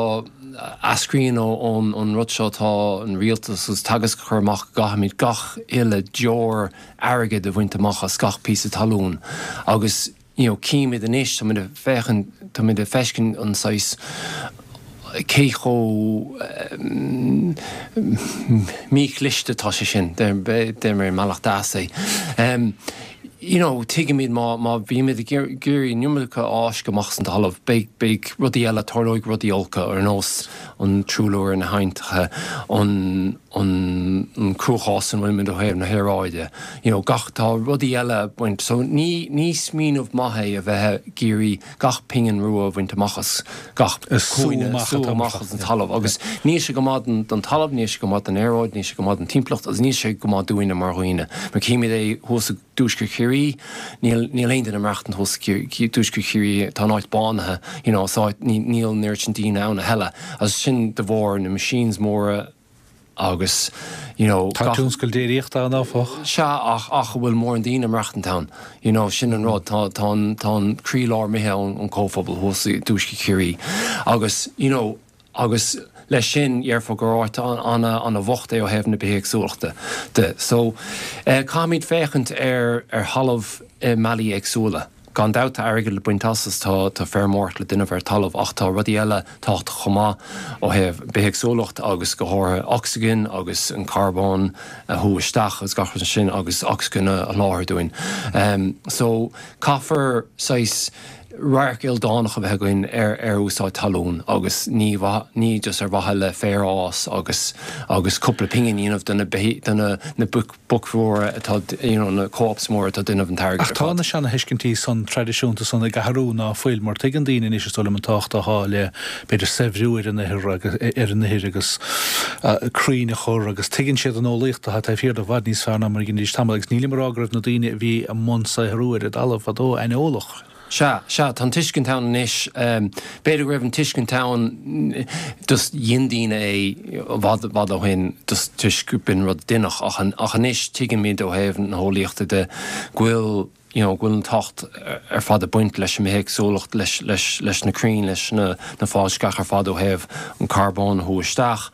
eascraíonn ón, ón rud seo atá an rialtas agus Teagasc a chur amach go gcaithfimid gach uile deoir airgid a bhaint amach as gach píosa talún agus, you know, címid anois, táimid ag féachaint, táimid ag feiscint an saghas, cé chomh míchliste atá sé sin, deir mé i mbealach deas é. You know, tuigimid má, má bhímid ag iarraidh an iomarca a fháisceadh amach as an talamh, beidh, beidh rudaí eile, tarlóidh rudaí olca ar nós an truailliú ar na haibhneacha, an, an cruachás ina bhfuilimid ó thaobh na haeráide, you know, gach, tá rudaí eile ag baint, so ní, ní smaoineamh maith é a bheith ag iarraidh gach pingin rua a bhaint amach as gach cúinne, sú amach as an talamh agus níl sé go maith don talamh, níl sé go maith don aeráid, níl sé go maith don timpeallacht agus níl sé go maith dúinne mar dhaoine. Mar címid é thuas i dtuaisceart Chiarraí, níl, níl aon duine ag maireachtaint thuas i dtuaisceart Chiarraí, tá an áit bánaithe, you know, is áit, níl an oiread sin daoine ann a thuilleadh agus sin de bharr na machines móra, agus you know Tá tionscal déiríochta ann áfach. Sea ach ach an bhfuil mórán daoine ag maireachtaint ann you know sin an rud tá tá an tá an croílár imithe ón ón comhphobal thuas i dtuaisceart Chiarraí agus you know agus leis sin dhéarfá gur áit ana ana bhocht é ó thaobh na bithéagsúlachta de so eh caithfimid féachaint ar ar thalamh i mbealaí éagsúla. Gan dabht tá airgead le baint as is tá tá feirmeoireacht le déanamh ar talamh ach tá rudaí eile tábhachtach chomh maith ó thaobh bithéagsúlacht agus go háirithe ocsaigin agus an carbón a shú isteach agus gach rud sin agus ocsaigin a sholáthar dúinn. So caithfear saghas radharc ildánach a bheith againn ar ar úsáid talún agus ní ní just ar mhaithe le féar a fhás agus agus cúpla pingin a dhéanamh do na do na na boic boic mhóra atá, you know, na co-ops móra atá ag déanamh an t-airgead Ach ar tá fad. na seana-thuiscintí san traidisiúnta san ag athrú, ná fuil? Mar tuigeann daoine anois, is dóigh liom, an tábhacht atá le, b'fhéidir, saibhriú ar an ithir agus, ar an ithir agus crainn a chur agus tuigeann siad an eolaíocht atá taobh thiar de i bhfad níos fearr ná mar a dheinidís tamall agus nílim ag rá go raibh na daoine a bhí i mbun saothrú ar an dtalamh fadó aineolach. Sea, sea, tá an tuiscint ann anois. B'fhéidir go raibh an tuiscint ann, just dhein daoine é i bhfad, i bhfad ó shin, just toisc go b'in rud a deineadh, ach, ach anois tuigimid ó thaobh na heolaíochta de go bhfuil, you know, go bhfuil an tábhacht ar fad ag baint leis an mbithéagsúlacht, leis, leis, leis na crainn, leis na, na fálsceach ar fad ó thaobh an carbón a shú isteach,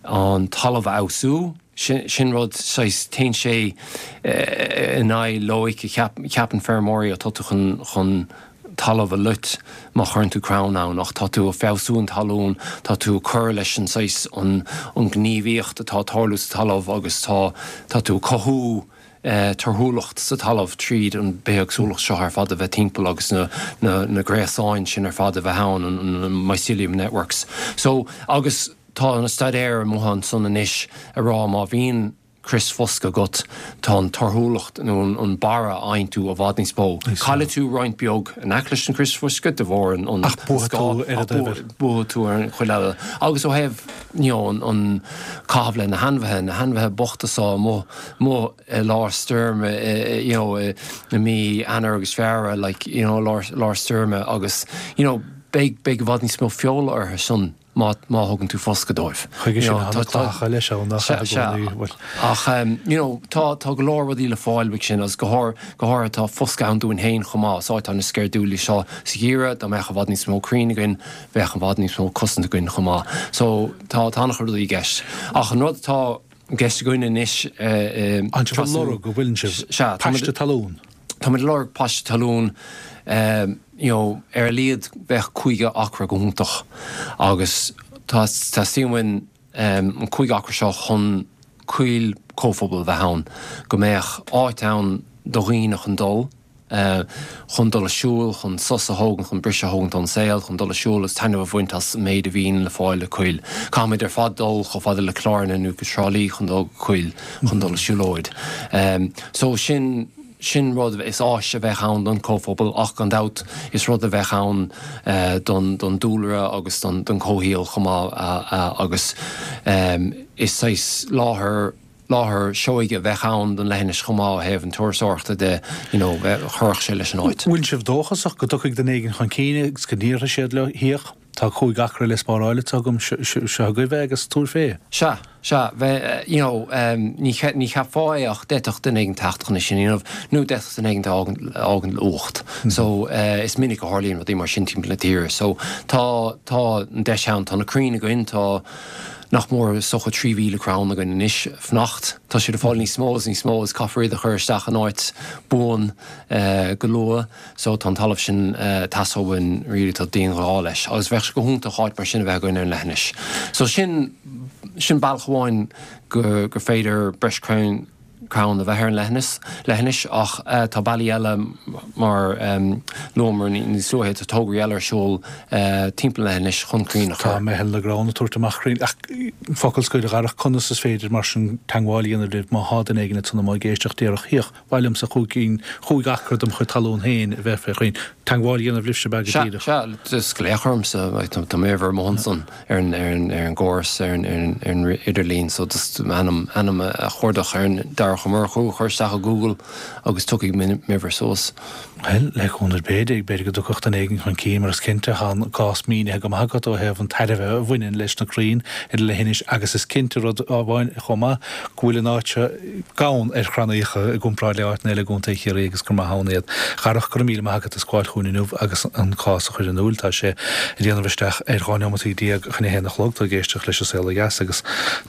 an talamh a fheabhsú. Sin rud, saghas, téann sé in aghaidh loighic a cheapann feirmeoirí, ó tá tú chun talamh a loit má chuireann tú crann ann, ach tá tú ag feabhsú an talún, tá tú ag cur leis an saghas, an ghníomhaíocht atá ag tarlú sa talamh agus tá, tá tú ag cothú torthúlacht sa talamh tríd an bithéagsúlacht seo ar fad a bheith timpeall agus na, na, na gréasáin sin ar fad a bheith ann, an mycelium networks. So, agus. Tá na staidéir amuigh ansan anois ag rá má bhíonn Crios foscaidh agat, tá an torthúlacht nó an barra a fhaigheann tú i bhfad níos mó. Caillfidh tú roinnt beag in aice leis an chrios foscaidh de bharr an Ach buafaidh tú ar an dtaobh eile. Buafaidh tú ar an chuid eile. Agus ó thaobh you know an caitheamh le na hainmhithe, na hainmhithe bochta so amuigh amuigh i lár stoirme you know i mí Eanáir agus Feabhra like you know lár lár stoirme agus you know beidh beidh i bhfad níos mó feola orthu san. má má thugann tú foscadh dóibh. Chuige sin tá na clathacha leis ann nach ea i gcónaí, bhuel. Ach you know tá tá go leor rudaí le fáil uaidh sin agus go háir go háirithe tá foscadh ann dúinn féin chomh maith. Is áit an-sceirdiúil í seo sa gheimhreadh, dá mbeadh i bhfad níos mó crainn againn bheadh i bhfad níos mó cosaint againn chomh maith. So tá tá an-chuid rudaí i gceist. Ach an rud atá i gceist againn anois i Tá sibh ag lorg, an bhfuileann sibh? Sea, Paiste talún. Táimid ag lorg paiste talún, you know, ar a laghad bheadh 50 acra go hiontach agus tá, teastaíonn uainn an 50 acra seo chun coill comhphobail a bheith ann, go mbeadh áit ann do dhaoine chun dul, chun dul a siúl, chun sos a thógaint, chun briseadh a thógaint ón saol, chun dul a siúl agus taitneamh a bhaint as an méid a bhíonn le fáil i coill. Caithfimid ar fad dul chomh fada le Cill Airne nó go Trá Lí chun dul go coill, chun dul a siúlóid. So sin. Sin rud, is áis a bheadh ann don chomhphobal ach gan dabht is rud a bheadh ann don dúlra agus don chomhshaol chomh maith agus is saghas láthair, láthair seoighe a bheadh ann don leithinis chomh maith ó thaobh an turasóireachta de, you know, chuirfeadh sé leis an áit. Bhfuil sibh dóchasach go dtiocfaidh duine éigin chun cinn agus go n-iarrfaidh siad leo theach? Tá 5 acra le spáráil anseo agam, seo agaibh é agus tabhair fé. Sea, sea, bheith, you know, ní, ní cheapfá é ach d'fhéadfadh duine éigin teacht chun é sin a dhéanamh nó d'fhéadfadh duine éigin a fhágaint le uacht. So, is minic a tharlaíonn rudaí mar sin timpeall na tíre. So, tá, tá an deis ann, tá na crainn againn, tá nach mór is dócha 3,000 crann againn anois fanacht. Tá siad ag fáil níos mó is níos mó is caithfear iad a chur isteach in áit buan go luath. So tá an talamh sin teastáil uainn really tá dianghá leis agus bheadh sé go hiontach áit mar sin a bheith againn ar an leithinis. So sin, sin bealach amháin go, gur féidir breis crann, crann a bheith ar an leithinis, leithinis ach tá bealaí eile mar luamar níos luaithe, tá tograí eile ar siúl timpeall an leithinis chun crainn a chur. Tá Meitheal na gCrann ag tabhairt amach crainn ach focal scoir a Dharach, conas is féidir mar sin teagmháil a dhéanamh libh má thá duine éigin ansan amuigh ag éisteacht déarfadh 'Hiach, Ba mhaith liomsa chúig cinn, chúig acra dem chuid talún féin a bheith fé chrainn. Teagmháil a dhéanamh libhse ab ea go Sea, díreach. sea, just glaoch ormsa, tá m'uimhir amuigh ansan ar an, ar an, ar an gcóras, ar an, ar an, ar an idirlíon, so just m'ainm, ainm a chuardach ar an Darach Ó Murchú a chur isteach i Google agus tiocfaidh m'uimhir suas. Bhuel, le cúnamh Dé, b'fhéidir go dtiocfadh duine éigin chun cinn, mar is cinnte, tá an cás mínithe go maith agat ó thaobh an tairbhe a bhaineann leis na crainn ar an leithinis agus is cinnte rud amháin chomh maith, go bhfuil an áit seo gann ar chrannaíocha i gcomparáid le áiteanna eile i gContae Chiarraí agus gur maith ann iad. A Dharach, go raibh míle maith agat as gabháil chugainn inniu agus an cás a chur in iúil. Tá sé ag déanamh isteach ar 12 neomataí chun a haon a chlog. Tá ag éisteacht leis an Saol Ó Dheas agus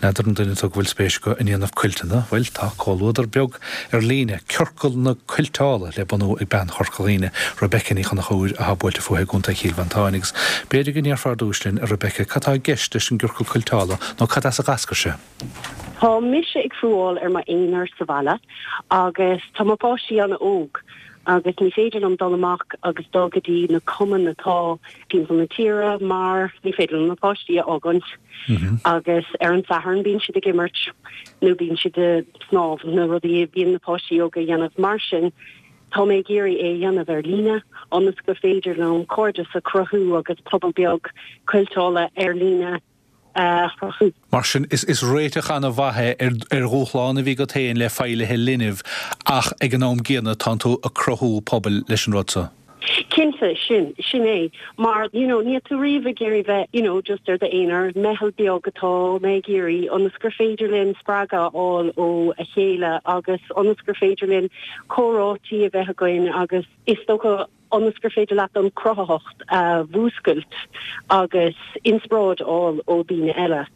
n'fheadar an duine tú go bhfuil spéis acu i ndéanamh cuilteanna, bhuel, tá comhluadar beag ar líne, Ciorcal na Cuilteála, le bunú ag bean Chorca Dhuibhne, Rebecca Ní Chonchúir, atá buailte fúithi i gContae Chill Mhantáin agus b'fhéidir go ndéarfá ar dtús linn, a Rebecca, cad tá i gceist leis an gCiorcal Cuilteála nó cad as a d'eascair sé? Tá mise ag fuáil ar m'aonar sa bhaile agus tá mo pháistí an-óg agus ní féidir liom dul amach agus dul go dtí na cumainn atá timpeall na tíre mar ní féidir liom na páistí a fhágaint agus ar an Satharn bíonn siad ag imirt nó bíonn siad ag snámh, na rudaí a bhíonn na páistí óga a dhéanamh. Mar sin tá mé ag iarraidh é a dhéanamh ar líne ionas gur féidir liom cairdeas a chruthú agus pobal beag cuilteála ar líne a chruthú. Mar sin, is réiteach an-mhaith é ar dhúshlán a bhí agat féin le feighlithe linbh ach ag an am gcéanna tánn tú ag cruthú pobail leis an rud so. Cinnte, sin, sin é. Mar, you know, níl tú riamh ag iarraidh bheith, you know, just ar d'aonar. Meitheal beag atá mé ag iarraidh ionas gur féidir linn spreagadh a fháil ó a chéile agus ionas gur féidir linn comhráití a bheith againn agus is dócha, ionas gur féidir leat an cruthaitheacht a mhúscailt agus inspioráid a fháil ó daoine eile,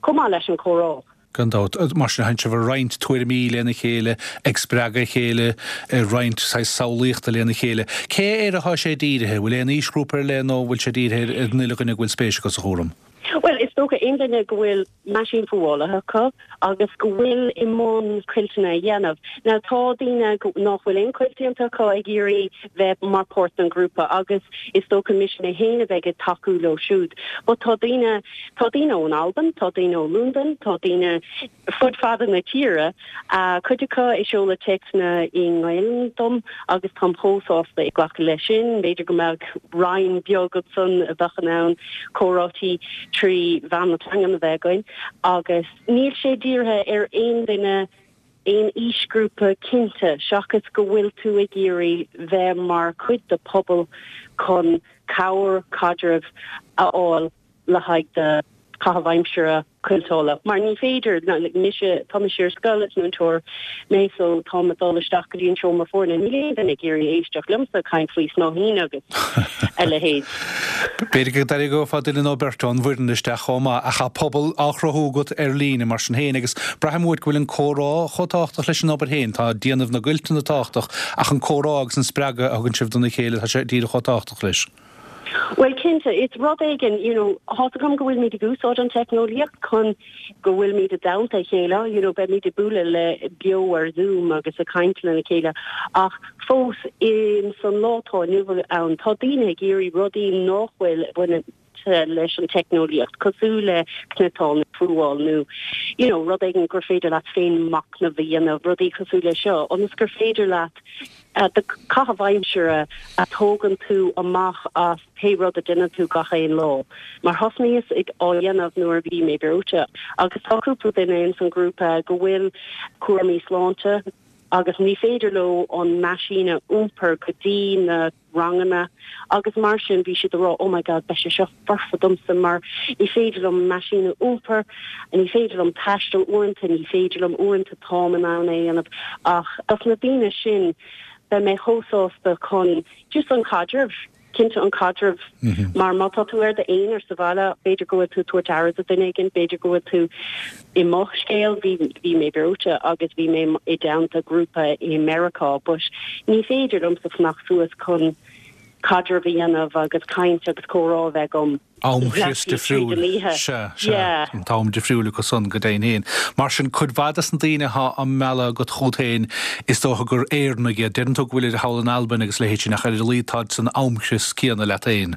chomh maith leis an chomhrá. Gan dabht. Mar sin, tánn sibh ag roinnt tuairimí lena chéile, ag spreagadh a chéile, ag roinnt saghas samhlaíochta lena chéile. Cé air atá sé dírithe? Bhfuil aon aoisghrúpa ar leith nó bhfuil sé dírithe ar an uile dhuine go bhfuil spéis acu sa chúram? Bhuel, is dócha aon duine go bhfuil meaisín fuálaithe acu agus go bhfuil i mbun cuilteanna a dhéanamh. Now tá daoine nach bhfuil aon cuilt déanta acu ag iarraidh bheith mar páirt den ghrúpa agus is dócha mise mé féin a bheidh ag tacú leo siúd. But tá daoine, tá daoine ón Albain, tá daoine ó Londain, tá daoine fud fada na tíre, cuid acu ag seoladh téacsanna i nGaelainn dom agus táim chomh sásta ag glacadh leis sin. B'fhéidir go mbeadh roinn beag ansan a bheadh in ann comhráití trí mheán na teangan a bheith againn agus níl sé dírithe ar aon duine, aon aoisghrúpa cinnte, seachas go bhfuil tú ag iarraidh bheith mar chuid de pobal chun cabhair, caidreamh a fháil. le haghaidh do chaitheamh aimsire cuilteála mar ní féidir, mise, tá mise ar scoil, is múinteoir mé so táim ag dul isteach go dtí an seomra foirne, níl aon duine ag iarraidh éisteacht liomsa ag caint faoi snáithín agus a leithéid. B'fhéidir go dtarraingeofá duine nó beirt ón bhfoireann isteach chomh maith ach tá pobal á chruthú agat ar líne mar sin féin agus braithim uait go bhfuil an comhrá chomh tábhachtach leis an obair féin, tá déanamh na gcuilteanna tábhachtach ach an comhrá agus an spreagadh a thugann sibh dona chéile, tá sé díreach chomh tábhachtach leis. Bhuel, cinnte, is rud éigin, you know, tá's agam go bhfuilimid ag úsáid an teicneolaíocht chun go bhfuilimid i dteannta a chéile, you know, beimid ag bualadh le beo ar Zoom agus ag caint lena chéile ach fós in san lá atá inniu ann, tá daoine ag iarraidh rudaí nach bhfuil bainte leis an teicneolaíocht, cosúil le cniotáil nó fuáil nó, you know, rud éigin gur féidir leat féin machnamh a dhéanamh, rudaí cosúil le seo, ionas gur féidir leat do chaitheamh aimsire a thógann tú amach as pé rud a déanann tú gach aon lá. Mar thosnaíos ag á dhéanamh nuair a bhí mé breoite agus tá cúpla duine ins an grúpa go bhfuil cúraimí sláinte agus ní féidir leo an meaisín a iompar go dtí na ranganna agus mar sin bhí siad ag rá oh my god beidh sé seo foirfe domsa mar ní féidir liom an meaisín a iompar, ní féidir liom taisteal uaireanta, ní féidir liom uaireanta táim in ann é a dhéanamh ach dos na daoine sin beidh mé chomh sásta chun just an caidreamh, cinnte an caidreamh mar má tá tú ar d'aonar sa bhaile b'fhéidir go bhfuil tú ag tabhairt aire do duine éigin, b'fhéidir go bhfuil tú i mo scéal bhí bhí mé breoite agus bhí mé i dteannta grúpa i Meiriceá but ní féidir liomsa fanacht suas chun caidreamh a dhéanamh agus caint agus comhrá a bheith agam Amchrios difriúil. Sea, sea. An t-am difriúil acu san, go deimhin féin. Mar sin, cuid mhaith des na daoine atá á mealladh agat chugat féin, is dócha gur Éireannaigh iad. Deireann tú go bhfuilid thall in Albain agus a leithéid sin, ach ar a laghad táid san amchrios céanna leat féin.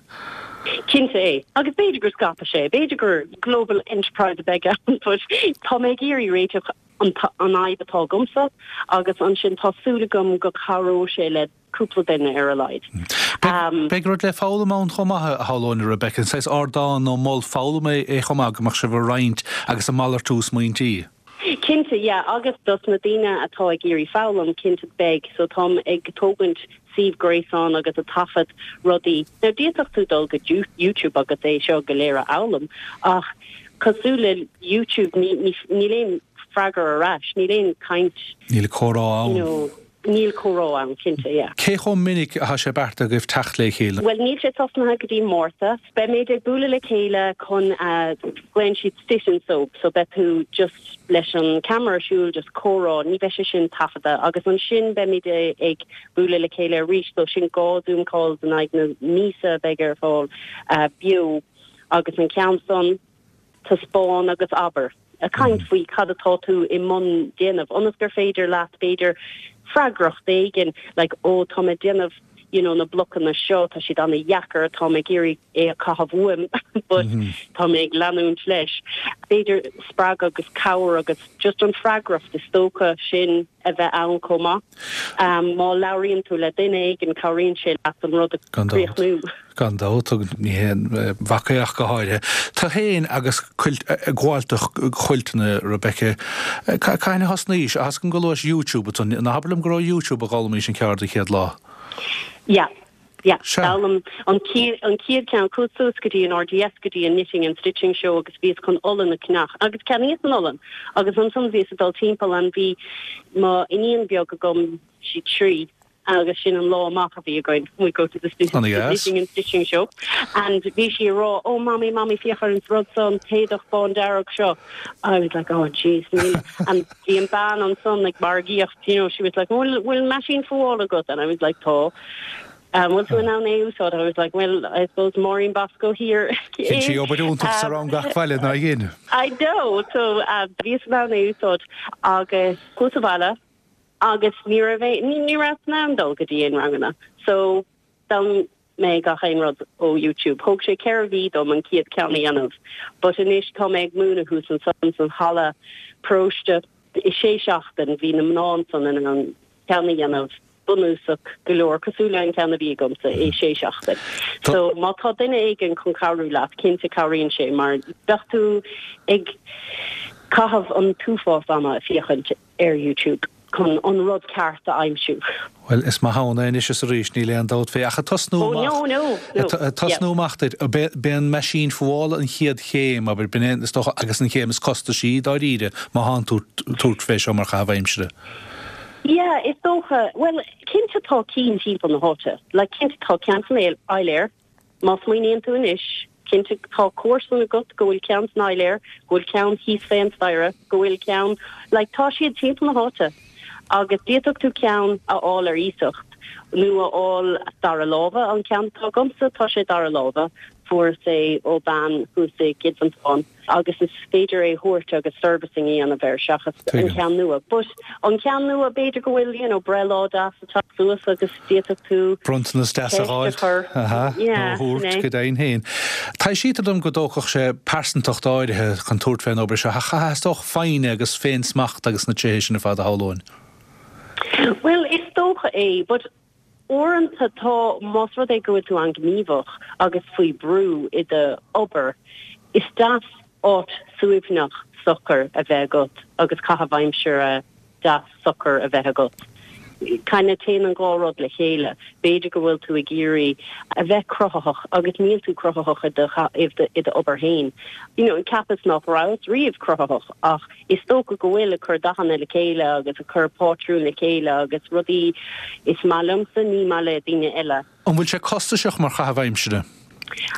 Cinnte é. Agus b'fhéidir gur scaipfidh sé, b'fhéidir gur global enterprise a bheidh ann but tá mé ag iarraidh réiteach an fhadhb atá agamsa agus ansin tá súil agam go cabhróidh sé le cúpla duine ar a laghad. Beidh rud le foghlaim ann chomh maith, a shamhlóinn, a Rebecca, an saghas ardán nó mol foghlama é chomh maith go mbeadh sibh ag roinnt agus ag malartú smaointí. Cinnte, yeah, agus dos na daoine atá ag iarraidh foghlaim, cinnte beidh, so táim ag tógaint suíomh gréasáin agus ag taifead rudaí. Now d'fhéadfadh tú dul go YouTube agus é seo go léir a fhoghlaim ach cosúil le YouTube ní, ní, níl aon freagra ar ais, níl aon caint. Níl comhrá ann. You know, Níl comhrá ann, cinnte, yeah. Cé chomh minic atá sé beartaithe agaibh teacht le chéile? Bhuel, níl sé tosnaithe go dtí Márta. Beimid ag bualadh le chéile chun, glaonn siad sit and sew, so beidh tú just leis an camera ar siúl, just comhrá, ní bheidh sé sin taifeadta. Agus ansin beimid ag bualadh le chéile arís, so sin 2 Zoom calls in aghaidh na míosa a bheidh ar fáil beo. Agus an ceann san, taispeáin agus abair. Ag caint faoi cad atá tú i mbun déanamh, ionas gur féidir leat, b'fhéidir, freagracht éigin, like, ó tá mé ag déanamh, you know, na blocanna seo, tá siad ana-dheacair, tá mé ag iarraidh é a chaitheamh uaim, but tá mé ag leanúint leis. B'fhéidir spreagadh agus cabhair agus just an freagracht is dócha sin a bheith ann chomh maith. Má labhraíonn tú le duine éigin, cabhraíonn sé leat an rud a chríochnú. Gan dabht, agus ní haon mhac é ach go háirithe. Tú féin agus cuilt, ag gabháil do chuilteanna, Rebecca, cathain a thosnaís? Tá a fhios agam gur luais YouTube ansan. Ná habair liom gur ó YouTube a d'fhoghlaimís an ceard an chéad lá? Yeah, yeah. Sea. D'fhoghlaim an chéad, an chéad cheann, chuas suas go dtí an RDS, go dtí an Knitting and Stitching Show agus bhíos chun olann a cheannach agus cheannaíos an olann agus ansan bhíos ag dul timpeall and bhí mo iníon beag agam, sí 3, agus sin an lá amach a bhí againn, we go to the knitting and stitching show and bhí sí ag rá oh mommy mommy féach ar an rud seo an t-éadach bándearg seo I was like oh jeez níl and bhí an bean ansan ag margaíocht you know she was like bhfuil bhfuil meaisín fuála agat and I was like tá. An bhfuil tú in ann é a úsáid? I was like, well, I suppose Máirín Bosco here is. Dhein sí obair iontach sa rang gach bhaile, nár dhein? I know! So bhíos in ann é a úsáid agus chuas abhaile agus ní raibh é, ní rabhas in ann dul go dtí aon ranganna. So d'fhoghlaim mé gach aon rud ó YouTube. Thóg sé 4 mhí dom an chéad ceann a dhéanamh but anois tá mé ag múineadh thuas ansan san halla paróiste. I sé seachtain bhí na mná ansan in ann ceann a dhéanamh bunúsach go leor, cosúil le an ceann a bhí agamsa, i sé seachtain. So má tá duine éigin chun cabhrú leat, cinnte cabhraíonn sé mar bheadh tú ag caitheamh an t-uafás ama ag féachaint ar YouTube chun an rud ceart a aimsiú. Bhuel, is maith ann é anois is arís, níl aon dabht fé. Ach ag tosnú Oh, amach, no, no, no, ag tosnú yeah. amach duit, b'é an meaisín fuála an chéad chéim, abair, b'in é, is dócha, agus an chéim is costaisí, dáiríre, má thánn tú tabhairt fé seo mar chaitheamh aimsire. Yeah, is dócha. Bhuel, cinnte tá cinn timpeall na háite. Like, cinnte tá ceann san Áiléar. Má smaoiníonn tú anois, cinnte tá comharsan agat go bhfuil ceann san Áiléar, go bhfuil ceann thíos fén staighre, go bhfuil ceann, like, tá siad timpeall na háite. Agus d'fhéadfadh tú ceann a fháil ar iasacht nó a fháil dara láimhe. An ceann atá agamsa, tá sé dara láimhe. Fuaireas é ó bean thuas i gCill Mhantáin. agus is féidir é a thabhairt agus servicing a dhéanamh air seachas an ceann nua. But an ceann nua b'fhéidir go bhfuil you know breithlá deas ag teacht suas agus d'fhéadfadh tú Bronntanas deas a ceist a dh'fháilt, chur. aha, nó a Yeah, sin thabhairt é. go deimhin féin. Taibhsítear dom go dtógfadh sé pearsantacht áirithe chun tabhairt fén obair seo, ach theastódh foighne agus féin-smacht agus na tréithe sin ar fad a shamhlóinn. Bhuel, is dócha é, but Uaireanta tá, más rud é go bhfuil tú an-ghníomhach agus faoi brú i do obair, is deas áit suaimhneach socair a bheith agat agus caitheamh aimsire deas socair a bheith agat. Kinda téann an dhá rud le chéile. B'fhéidir go bhfuil tú ag iarraidh a bheith cruthaitheach agus níl tú cruthaitheach i do i do obair féin. You know, cheapas nach rabhas riamh cruthaitheach ach Is dócha go bhfuil, ag cur dathanna le chéile agus ag cur pátrún le chéile agus rudaí is maith liomsa, ní maith le daoine eile. An bhfuil sé costasach mar chaitheamh aimsire?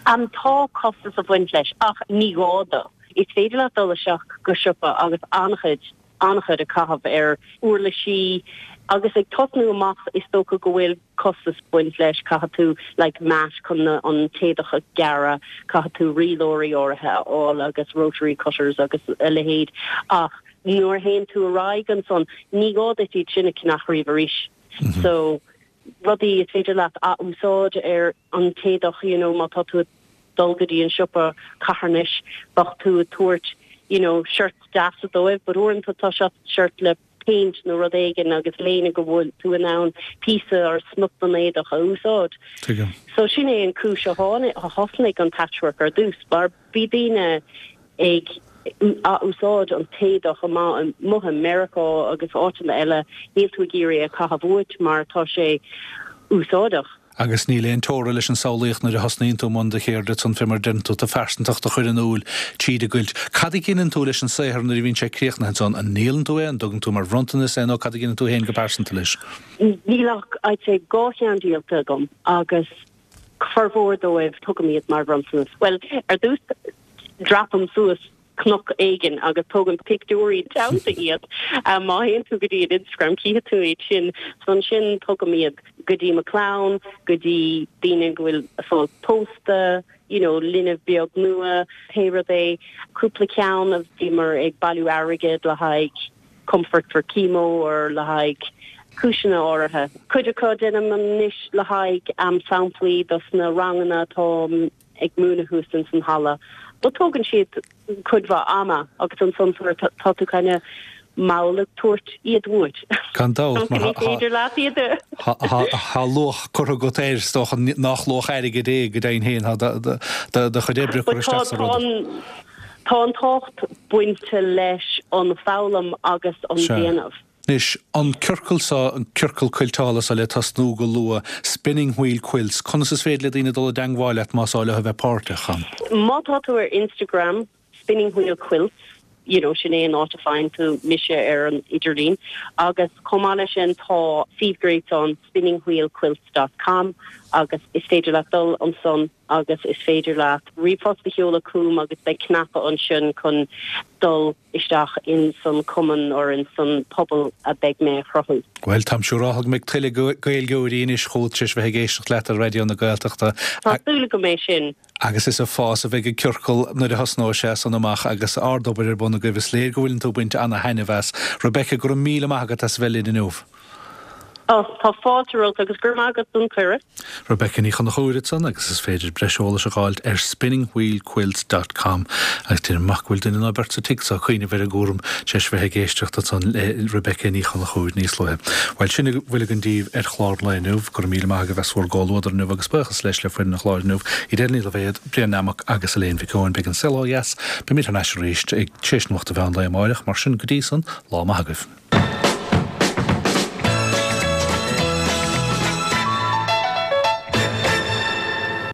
Tá costas ag baint leis ach ní gá dó. Is féidir leat dul isteach go siopa agus an-chuid, an-chuid a chaitheamh ar uirlisí agus ag tosnú amach is dócha go bhfuil costas ag baint leis, caithfidh tú like mat chun an t-éadach a ghearradh, caithfidh tú rialóirí áirithe a fháil agus rotary cutters agus a leithéid ach nuair a théann tú ar aghaidh ansan ní gá duit iad sin a cheannach riamh arís. So rudaí is féidir leat ath-úsáid ar an t-éadach you know má tá tú ag dul go dtí an siopa carthanais bheadh tú ag tabhairt you know shirts deasa dóibh but uaireanta tá shirt le péint nó rud éigin agus léine go bhfuil tú in ann píosa or smut den éadach a úsáid. Tuigim. So sin é an cúis a tháinig, a thosnaigh an patchwork ar dtús mar bhí daoine ag ath-úsáid an t-éadach amuigh i Meiriceá agus áiteanna eile, níl tú ag iarraidh é a chaitheamh uait mar tá sé úsáideach. Agus níl aon teora leis an samhlaíocht nuair a thosnaíonn tú i mbun do cheirde ansan fé mar a deireann tú, do phearsantacht a chur in iúl tríd an gcuilt. Cad a dheineann tú leis an saothar nuair a bhíonn sé críochnaithe ansan? An ndíolann tú é, an dtugann tú mar bhronntanas é nó cad a dheineann tú féin go pearsanta leis? Níl ach, I'd say, 2 cheann díolta agam agus formhór dóibh tugaim iad mar bhronntanas. Bhuel, ar dtús dreapaim suas cnoc éigin agus tógaim pictiúirí teannta iad. Má théann tú go dtí an Instagram cífidh tú iad sin. So ansin tugaim iad go dtí mo chlann, go dtí daoine go bhfuil ag fáil pósta, you know linbh beag nua, pé rud é. Cúpla ceann a bhíomar ag bailiú airgead le haghaidh Comfort for Chemo or le haghaidh cúiseanna áirithe. Cuid acu déanaim anois le haghaidh samplaí dos na ranganna atá ag múineadh thuas ins an halla. But tógann siad cuid mhaith ama agus ansan sort tá tú kind of mall ag tabhairt iad uait. Gan dabht, mar Ní féidir leat iad a. tá luach curtha agat air, is dócha nach luach airgid é go deimhin féin, tá do chuid oibre curtha isteach sa rud. Tá an tábhacht bainte leis an foghlaim agus an déanamh. Anois, an ciorcal seo, an ciorcal cuilteála seo le tosnú go luath, Spinning Wheel Quilts, conas is féidir le daoine dul i dteangmháil leat más áil leo a bheith páirteach ann? Má tá tú ar Instagram, Spinning Wheel Quilts. You know, sin é an áit a faigheann tú mise ar an idirlíon. Agus chomh maith leis sin tá suíomh gréasáin spinningwheelquilts dot com agus is féidir leat dul ansan agus is féidir leat ríomhphost a sheoladh chugam agus beidh cnaipe ansin chun dul isteach in san cumann or in san pobal a beidh mé a chruthú. Bhuel, táim siúráltha go mbeidh tuilleadh Gaeilgeoirí anois chugat tar éis bheith ag éisteacht leat ar Raidió na Gaeltachta. Tá súil agam é sin. Agus is ag fás a bheidh an ciorcal nuair a thosnóidh sé san amach agus ard-obair ar bun agaibh. Is léir go bhfuileann tú ag baint ana-thaitneamh as. Rebecca, go raibh míle maith agat as a bheith linn inniu. Ó, tá fáilte romhat agus go raibh maith agat don chuireadh. Rebecca Ní Chonchúir ansan agus is féidir breis eolais a dh'fháilt ar spinningwheelquilts dot com agus déanaim amach go bhfuil duine nó beirt sa tigh so ag cuimhneamh ar an gcúram tar éis bheith ag éisteacht ansan le Rebecca Ní Chonchúir níos luaithe. Bhuel, sin a bhfuil againn daoibh ar chlár an lae inniu. Go raibh míle maith agaibh as bhur gcomhluadar inniu agus buíochas leis le foireann an chláir inniu, Edel Ní Loibhéad, Brian Nammock agus Elaine Mhic Eoin. Beidh an Saol Ó Dheas, beimid thar n-ais arís ag tar éis nuacht an mheán lae amáireach, mar sin go dtí san, lá maith agaibh.